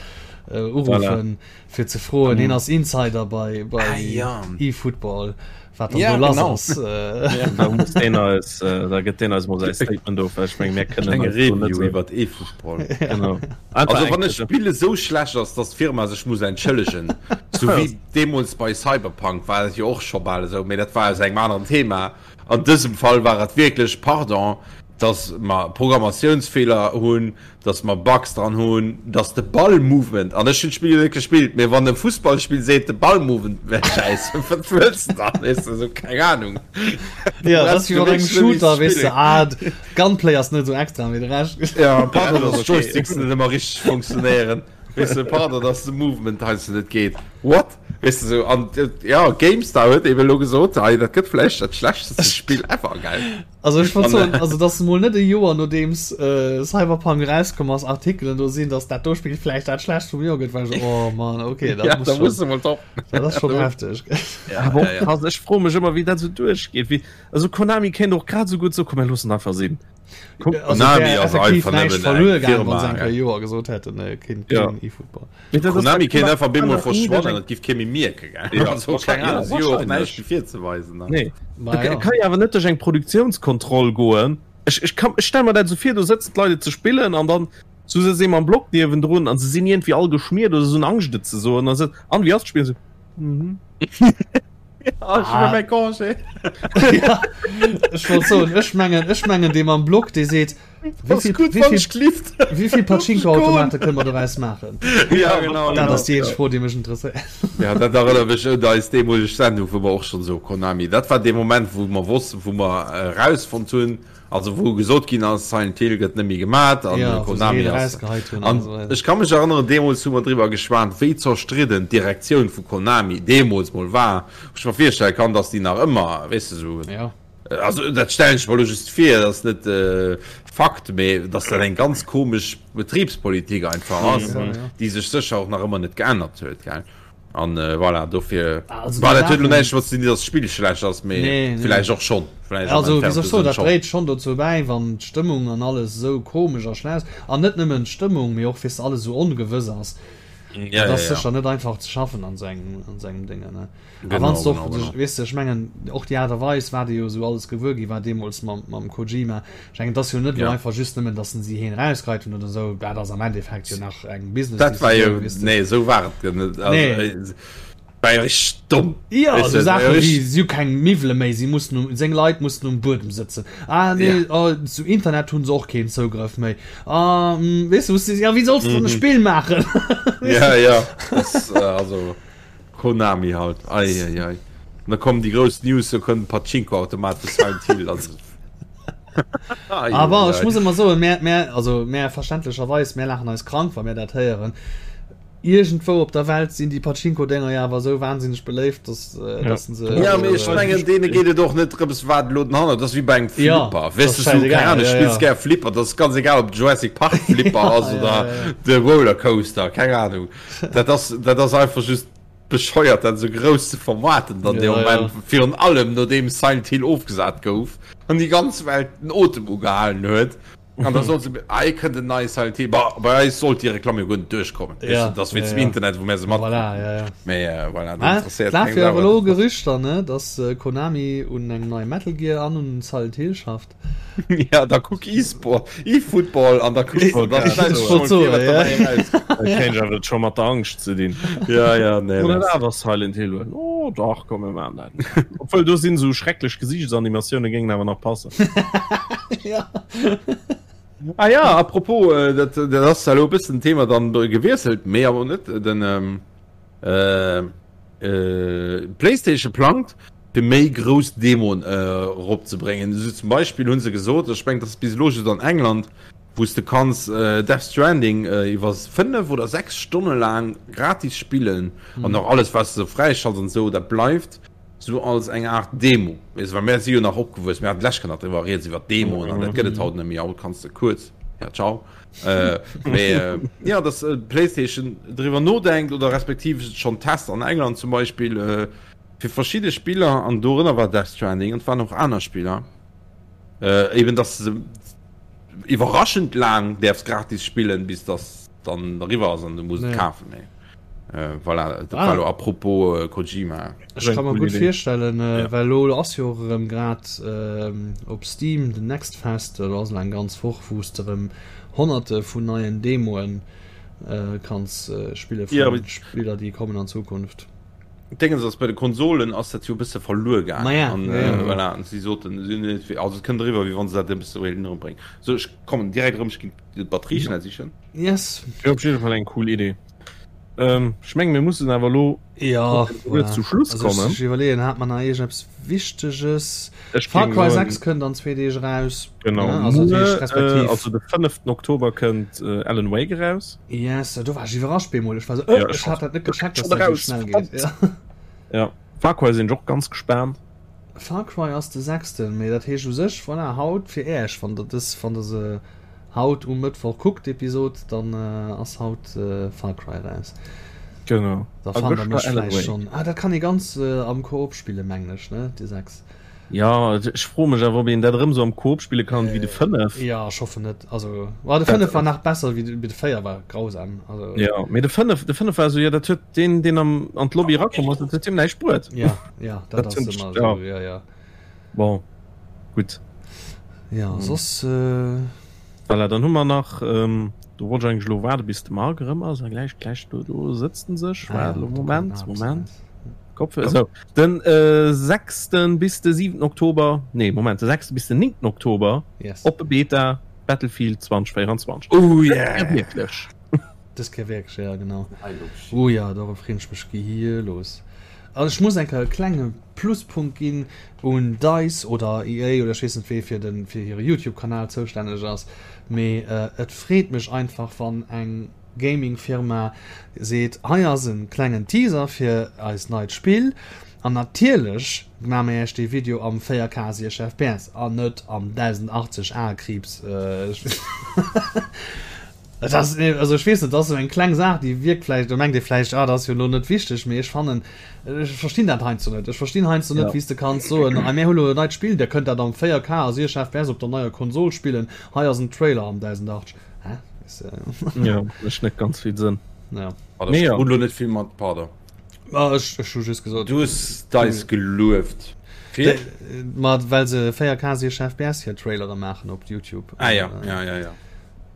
uruffen, fir ze froen. Hien ass Insider bei, bei eFootball. Wat dann ja, do lass ass. Äh. Ja, da muss deen eis, äh, da gëtt deen eis mol säi Statement of, well ech meng, mir kënnen Eng Review iwwer eFootball. Genau. Also wann e Spill esou schlecht ass, dass d'Firma sech muss entschëllegen, sou wéi deemools bei Cyberpunk war et jo och scho bal esou, mee dat war aus engem aneren Thema. An dësem Fall war et wierklech, pardon, dass mer Programmatiounsfeeler hunn, dass mer Bugs dran hunn, dass de Ball-Movement, an ech hunn d'Spill jo net gespillt, mee wann e Fussballspill seet, de Ball-Movement wär schäiss, wat wëlls de dann, weess de, esou, keng Ahnung. Ja, dat ass wéi mat engem Shooter, weess de, ah, Gunplay ass net esou extra, mee de Rescht. Ja, pardon, dass d'Joysticks net ëmmer richteg funktionéieren, weess de, pardon, dass de Movement heiansdo net geet, what? Weess de, esou, an ja, GameStar huet eben elo gesot, hei, dat gëtt vläicht dat schlechteste Spill ever, gell? Also ech wollt soen, also dass mol net e Joer nodeems äh, Cyberpunk rauskomm ass, Artikelen do sinn, dass dat do Spill vläicht dat schlechtst vum Joer gëtt, war ech oh Mann, okay, dat ja, muss schon, muss mal top. Dat ass schon heftig. Ja, aber ja, ja. Krass, ech froe mech ëmmer, wéi dat sou duerchgeet. Wéi, also Konami kéint och grad sou gutt so komm, mir loossen einfach sinn. Komm, also Konami ass einfach nëmmen eng Firma. Wann se Joer gesot hätten, äh, keen, ja. keen E-Football. Konami kéint einfach bemol verschwannen, et giff kee méi mierken, gell? Ja, also, keng Ahnung, si hu och näischt méi virzeweisen. Ne? Nee. Ma ja. Kann jo awer net duerch eng Produktiounskontroll goen. Ech, ech, kann, ech stell mer dat esou vir, do sëtzen d'Leit et ze spillen an dann so sëtzt ee mam Block niewendrun an se sinn iergendwéi all geschmiert oder se hunn Angscht et ze soen a se, an wéi ass d'Spill? Se, mhm. Ja, ech huele mäi Congé. Ja, ech wollt soen, ech mengen, ech mengen dee mam Block, dee seet, Wéi vill, wéi vill Pachinko-Automate kënne mer doraus maachen? Ja, genau. Dat ass déi eenzeg Fro, déi mech interesséiert. Ja, dat erënnert mech un eis deemoleg Sendung, wou mer och schonn esou Konami, dat war dee Moment, wou mer wossten, wou mer erausfonnt hunn, also wou gesot ginn ass, Silent Hill gëtt net méi gemat an ja, Konami ass. An ech ka mech erënneren, deemools hu mer driwwer geschwat, wéi zerstridden d'Direktioun vu Konami deemools mol war, wou ech mer virstelle kann, datt déi nach ëmmer, weess de, esou. Ja. Also dat stellen ech mer elo just vir, dat ass net Fakt, mee datt dat eng ganz komesch Betribspolitik einfach ass, déi sech sécher och nach ëmmer net geännert huet, gell? An voilà, dofir, bon, dat huet elo näischt domat ze dinn, datt d'Spill schlecht ass, mee villäicht och schonn, villäicht am Also, wéi soll ech entfernte soen, Sënn dat schonn. dréit schonn dozou bäi, wann d'Stëmmung an alles esou komesch a schlecht ass, an net nëmmen d'Stëmmung, mee och weess de, alles esou ongewëss ass, Ja, dat ja, ass ja. sécher net einfach ze schaffen an esou engem, an esou engem Déngen, ne? Genau, A wann s de genau, och, genau. weess de, ech mengen, och déi Aart a Weis, wat ee jo esou alles gewuer gi war deemools mam, mam Kojima, ech mengen, et ass jo net elo Ja. einfach just nëmmen, datt en si heen erausgeheit hunn oder esou, dat ass am Endeffekt jo nach eng Dat war jo, Business-Decisioun, weess de. nee, esou war et jo net. Also, Nee. äh, war jo richteg domm. Jo, Weess esou de, war Saache jo wéi, richteg. si hu keng Miwwele méi, si mussen um, seng Leit mussen um Buedem sëtzen, ah nee, Ja. oh, zu Internet hu se och keen Zougrëff méi, ah, hm, weess de, wou s de, ja, wéi solls de dann e Mhm. Spill maachen? Weess Ja, de? ja, das, äh, also. Konami halt, ei ei ei. An da kommen déi grouss News, do kënnt en Pachinko-Automat vu Silent Hill. Also. Ei, Aber ech muss ëmmer soen, mär, mär, also mär verständlecherweis, mär laachen eis krank, wa mär dat héieren. Iergendwou op der Welt sinn déi Pachinko-Dénger jo awer esou wahnsinneg beléift, dass, Ja. dass se. Ja, mee ech mengen, deene geet et och net drëms, wat elo den Hanner, dat ass wéi bei engem Ja, Flipper. dat Weess ass de, sou, keng schäisegal, Ahnung, ja, spills ja. gär Flipper, dat ass ganz egal, ob et Jurassic Park Flipper ass Ja, oder ja, ja. de Rollercoaster, keng Ahnung. Dat ass, dat ass einfach just bescheuert, dat esou grouss ze vermaarten dann dee Ja, Moment, ja. virun allem nodeem Silent Hill ofgesat gouf an déi ganz Welt den Otem ugehalen huet. An da soll se ei kënnt en neie Silent Hill. Bah, bei eis sollt déi Reklamm jo guer net duerchkommen. Ja, Weißt du, das wéinst ja, dem ja. Internet, wou mär se mat. Voilà, ja, ja. Mee äh, voilà, dat Ah, interesséiert lafe keng jo Sau. awer elo Gerüchter, ne, dass äh, Konami un engem neie Metal Gear an un Silent Hill schafft. Ja, da kuck E-Sport, E-Football an da kucks du, da Ich stellst du wollt schon vir, soen, wat ja. dabei erauskommt. Dat kéint awer scho mat der Angscht ze dinn. Ja, ja, nee, Oder das. awer Silent Hill huelen. Oh dach, komm mir maachen dat. Obwuel do sinn esou schrecklech Gesiichtsanimatiounen, géingen awer nach passen. ja. Ah ja, apropos, äh, dat, dat ass elo e bëssen Thema dann gewiesselt, mee awer net den ähm, äh, äh, PlayStation plangt fir méi grouss Demoen äh, eropzebréngen. Esou zum Beispill hunn se gesot, ech mengen, dat ass bis elo just an England, wou s de kanns äh, Death Stranding äh, iwwer 5 oder 6 Stonne laang gratis spillen mhm. an och alles was du fräischalts an sou, dat bleift sou als eng Art Demo. Weess, well mär si jo nach opgewuess, mär haten d'lescht Kéier nach driwwer rieds iwwer Demoen an dat gëtt et haut net méi, haut kanns de kuerz, ja ciao. Äh, mee äh, ja, dass äh, PlayStation driwwer nodenkt oder respektiv schonn test an England zum Beispill äh, fir verschidde Spiller an dorënner war Death Stranding an et waren och aner Spiller äh, eben dass se iwwerraschend laang däerfs gratis spillen, bis dass dann eriwwer ass an du muss et kafen. Mee. Äh, voilà, dat war lo ah. apropos äh, Kojima. Ech kann mer gutt virstellen, äh, ja. well lo ass jo och erëm grad äh, op Steam den Next Fest, do ass eng ganz Woch, wou s de erëm Honnerte vun neien Demoen äh, kanns äh, spille vun ja, Spiller, déi kommen an Zukunft. Dingens ass bei de Konsolen ass dat jo e bësse verluer gaangen. Ma ja, an, ja, ja. Äh, voilà, an si soten, also et kënnt eriwwer, wéi wann se dat e bësse wéilten erëmbréngen. So, ech kommen direkt erëm, ech ginn d'Batterie schnell sichen. Yes. Op jidde Fall eng cool Idee. Ähm, ech menge mir mussen awer lo ja, voilà. zu Schluss also, kommen. Ech iwwerleeën hat man nach iergendeppes Wichteges. Ech Far géing Cry soen- 6 kënnt an zwee Deeg eraus. Genau. Ja, also, Muer, dat heescht, respektiv- äh, also de 5. Oktober kënnt äh, Alan Wake eraus. Yes, do war ech iwwerrascht bemol. Ech war so, äh, Ja, ech ech hat dat net gecheckt, dass schon dat sou raus, schnell geet. Ja. Ja. Far Cry sinn ech och ganz gespaant. Far Cry ass de sechsten, mee dat heescht u sech, voilà, haut fir Äech, wann der dës, wann der se haut um Mëttwoch kuckt, d'Episod, dann ass haut Far Cry eraus. Genau. Da fannt der mech vläicht schonn. Ah, dat kann ee ganz am Koop spillen, mengen ech, ne, de 6. Jo, ech froe mech awer, ob een dat erëm sou am Koop spille kann wéi de 5. Jo, ech hoffen net. Also, ma de 5 war nach besser wéi de 4 war grausam. Also. Jo, mee de 5, de 5 war esou, jo, dat huet deen, deen am, an d'Lobby erakomm ass, dat huet him näischt bruet. Ja, ja, dat ass ëmmer esou, ja, ja. Bon, gutt. Ja, soss. Voilà, dann hu mer nach, do wollt ech eigentlech elo waarde bis de Marc erëm ass, a gläich, gläich do, do sëtzt en sech. Waart elo, Moment, Moment. Kopfhörer, so. Den äh, 6. bis de 7. Oktober, nee, Moment, de 6. bis den 9. Oktober, yes. oppe Beta Battlefield 2024. Oh yeah! Wierklech. Dës Kéier wierklech, ja, genau. Oh ja, dorop freen ech mech gehierlos. Also ech muss eng Kéier e klenge Pluspunkt ginn un DICE oder EA oder ech weess net wee fir den fir hire YouTube-Kanal zoustänneg ass, mee äh, et freet mech einfach wann eng Gaming-Firma seet, hei ass en klengen Teaser fir eist neit Spill an natierlech maa mir iech dee Video am 4K 60 fps an net am 1080 a Kriibs. Et ass, also ech weess net, dat ass esou eng kleng Saach, déi wierkt vläicht, do mengt ee vläicht, ah dat ass jo elo net wichteg, mee ech fannen, ech verstinn dat heiansdo net. Ech verstinn heiansdo net, wéi s de kanns soen, hei mir hu lo e neit Spill, dir kënnt dat am 4K a 60 fps op der neier Konsol spillen, hei ass en Trailer am 1080. Hä? Ja, mécht net ganz vill Sënn. Ja. Nee, ja. Lo net vill mat, pardon. Ah, ech, ech hu just gesot. Du hues DICE gelueft. Fir? Ma well se 4K 60 FPS hir Trailere maachen op YouTube. Ah ja, ja, ja, ja.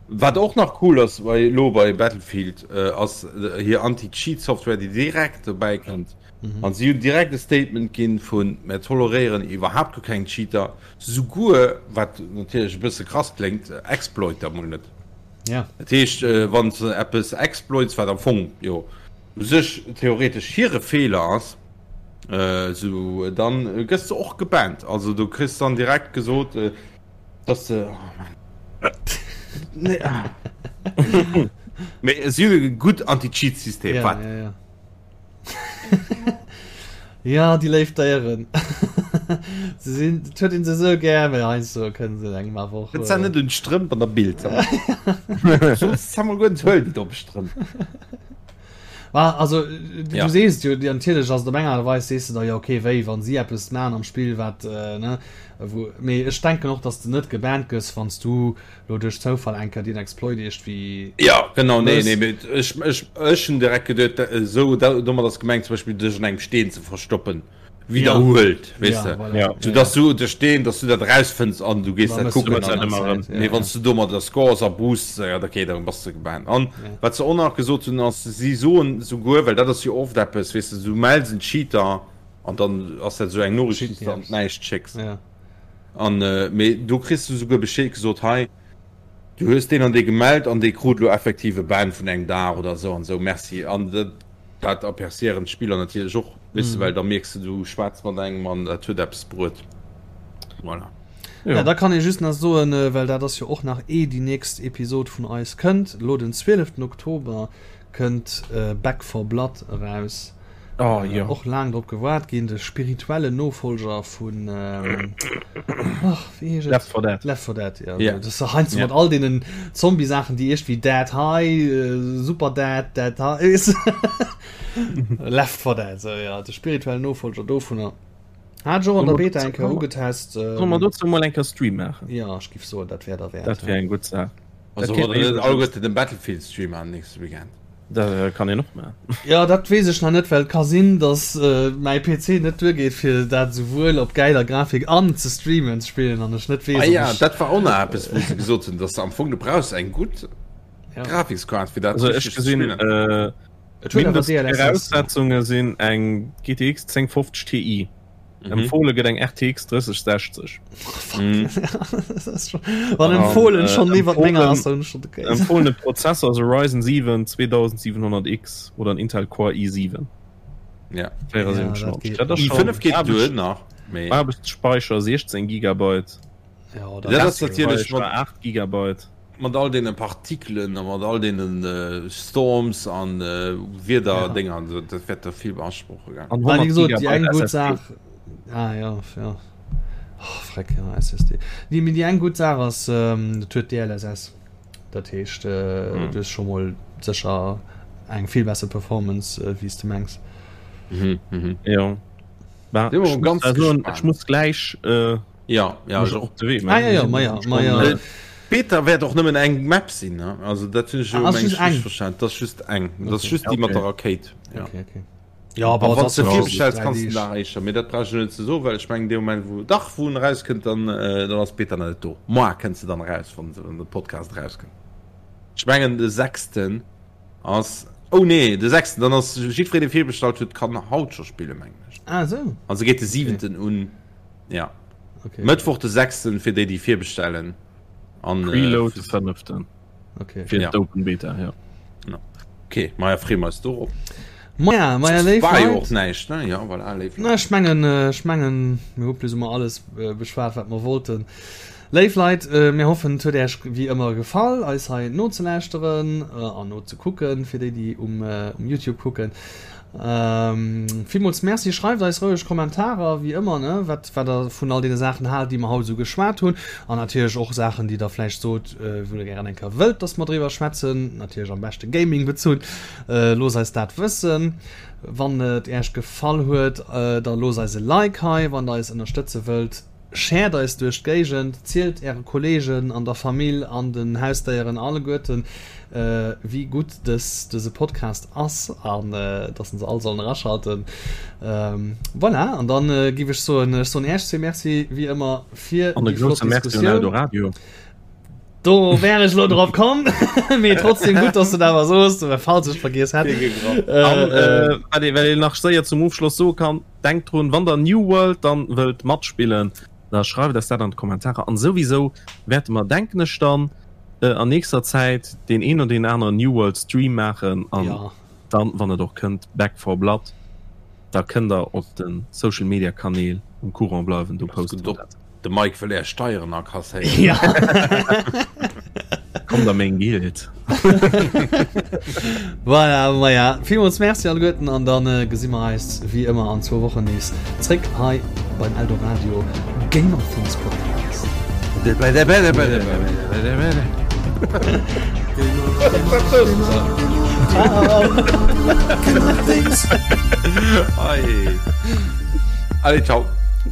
Wat och nach cool ass bei lo bei Battlefield äh, ass äh, hir Anti-Cheat-Software, déi direkt dobäi kënnt. Mhm. An si hunn direkt e Statement ginn vun mir toleréieren iwwerhaapt guer keng Cheater. Souguer, wat natierlech e bësse krass kléngt, Exploiter mol net. Ja. Dat heescht, wann s de eppes exploits, wat am Fong jo u sech theoretesch hire Feeler ass, esou dann gëss de och gebannt. Also du kriss dann direkt gesot, dass de, oh Mann, nee, ah. Mee si hunn e gutt Anti-Cheat-System, Ja, wat? ja, ja. Ja, déi léif Déieren. Se sinn, et huet een se esou gär, mä heiansdo kënne se engem awer och. Net net un d'Strëmp an der Bild. Soss Samuel guer net huel déi domm Strëmp. War also du ja. sees jo natierlech ass op enger Weis sees du da ja okay wéi wann si eppes man am Spill wat äh, ne wou mee ech denken och dass du net gebannt gëss wann s du lo duerch Zoufall eng Kéier deen Exploit iergendwéi Ja genau nee nee mee ech ech ech hunn direkt geduet esou domat ass gemengt zum Beispill dech an engem Steen ze verstoppen. widderhuelt ja. weess ja, voilà. ja. So, dass du de Steen dass du dat rausfënns an du gees dat kucken nee, wann du do mat der Scores a Boost ja, okay, dann bass du gebannt an ja. wat se och nach gesot hunn ass si soen souguer well dat ass jo oft eppes weess du du mells en Cheater an dann ass dat sou eng Noriicht déi s du an d'Näischt schécks ja. an äh, mee do kriss du souguer Bescheed gesot hei du hues deen an dee gemellt an dee krut lo effektiv e Ban vun engem Dag oder sou an sou merci an dat Dat aperciéieren d'Spiller natierlech och, weess de, well da mierks de, du schwätz mat engem an dat huet eppes bruet. Voilà. Ja, da kann ee just nach soen, well dat ass jo och nach ee déi nächst Episod vun eis kënnt, elo den 12 Oktober kënnt Back 4 Blood eraus. Oh, jo. Och laang drop gewaart ginn, de spirituellen Nofolger vun, ach, wéi heescht et? Left 4 Dead. Left 4 Dead, ja. Yeah. Das ist heiansdo yeah. mat all deenen Zombie-Saachen, déi iergendwéi Dead High, Super Dead, Dead High, Left 4 Dead, so, ja, de spirituellen Nofolger dovunner. Hat ech och an der Beta eng Kéier ugetest. Solle mer dozou mol eng Kéier Stream maachen? Ja, ech giff soen, dat wär derwäert. Dat wär eng gutt Saach. Also wollt der net alleguerten den Battlefield Stream maachen nächste Weekend? Dat kann een och maachen. Jo, dat weess ech nach net, well et ka sinn, dass mäi PC net duergeet fir dat esouwuel op gäiler Grafik an ze streamen ze spillen an ech net weess, Ah ja, dat war och nach eppes wou se gesot hunn, dass se am Fong du brauchs eng gutt Grafikskaart fir dat Also ech gesinn Mindestviraussetzunge sinn eng GTX 1050 Ti. Mhm. Empfohle gëtt eng RTX 3060. Mhm. Wann empfohlen schon äh, iwwer menger ass, dann schon okay. Empfohlene Prozessor ass e Ryzen 7 2700X oder en Intel Core i7. Ja. 74. Ja, dat geht. i5 geht duer nach. Aarbechtsspeicher 16 Gigabyte. Ja, dat ass natierlech mat 8 Gigabyte. Mat all deene Partikelen a mat all deene Storms an Wiederdénger, dat wäert der vill beasproche gell? An 100 Gigabyte déi eng gutt Saach, ah ja, ja, oh freck, ja SSD. Déi, mee déi eng gutt Saach ass, et huet DLSS, dat heescht du hues scho mol sécher eng vill besser Performance wéi s de mengs. Jo, ech muss gläich. Ja, ja, ech och. De Wee, ah, ja, ja, ma ja, ma ja. Beta wäert och nëmmen eng Map sinn, ne? Also dat hunn ech jo ah, meng eng verstanden. Dat ass just eng. Dat ass just déi mat der Rakéit. Ja. Okay, okay. Ja, aber wann du virbestells kanns du nach éischter. Mee dat brauch ech net ze soen, well ech mengen dee Moment wou dach wou en erauskënnt, dann äh, dann ass d'Beta nach net do. Moar kënnt se dann eraus, wann wann de Podcast erauskënnt. Ech mengen de sechsten ass Oh nee, de sechsten, dann ass jiddwereen dee virbestallt huet, kann haut scho spillen, mengen ech. Ah, sou. Also geet de siwenten un. Ja. Okay. Mëttwoch de 6. fir déi déi virbestellen. An, äh, Preload de 5. Okay. Fir ja. d'Open Beta, ja. ja. Okay, Maja freeë mer eis dorop. Maja, maja, léif War jo och näischt, ne? Ja, voilà, léif Leit. Na, ech mengen, äh, ech mengen, mir hu plus ou moins alles äh, beschwat, wat mer wollten. Léif Leit, äh, mir hoffen, et huet Äech wéi ëmmer gefall, eis hei nozelauschteren äh, an nozekucken, fir déi, déi um, äh, um YouTube kucken. Villmools Merci. Schreift eis roueg Kommentarer, wéi ëmmer, ne, wat, wat der vun all deene Saachen haalt, déi mer haut esou geschwat hunn. An natierlech och Saachen, déi der vläicht sot, wou der gären eng Kéier wëllt, dass mer driwwer schwätzen. Natierlech am beschte Gaming bezunn. Loosst eis dat wëssen. Wann et Äech gefall huet, da loosst eis e Like hei, wann der eis ënnerstëtze wëllt. Shared eis duerch d'Géigend, zielt äre Kollegen an der Famill an den Hausdéieren alleguerten, wéi gutt dës dëse Podcast ass an dass se all sollen eraschalten. Voilà, an dann giff ech soen, ech soen Äech zwee Merci wéi ëmmer fir déi flott Diskussioun. Do wär ech lo drop komm, mee trotzdem gutt, dass du dat awer soos, falls ech vergiess hätt. An wat een nach séier zum Ofschloss soe kann, Denkt drun, wann der New World dann wëllt matspillen, da schreift eis dat an d'Kommentarer. An souwisou wäerte mer, denken ech dann, an nächster Zäit deen een oder deen aneren New World Stream maachen. An dann, wann et och kënnt, Back 4 Blood, da kënnt der op de Social Media Kanäl um Courant bleiwen, do poste mer dat. De Mike wëll är Steieren akasséieren. Ja. Kommt a meng Guild. Voilà, maja, villmools Merci alleguerten an dann äh, gesi mer eis wéi ëmmer an zwou Wochen nees zréck hei beim Eldoradio Gamer Things Podcast. Ciao. Allez, ciao.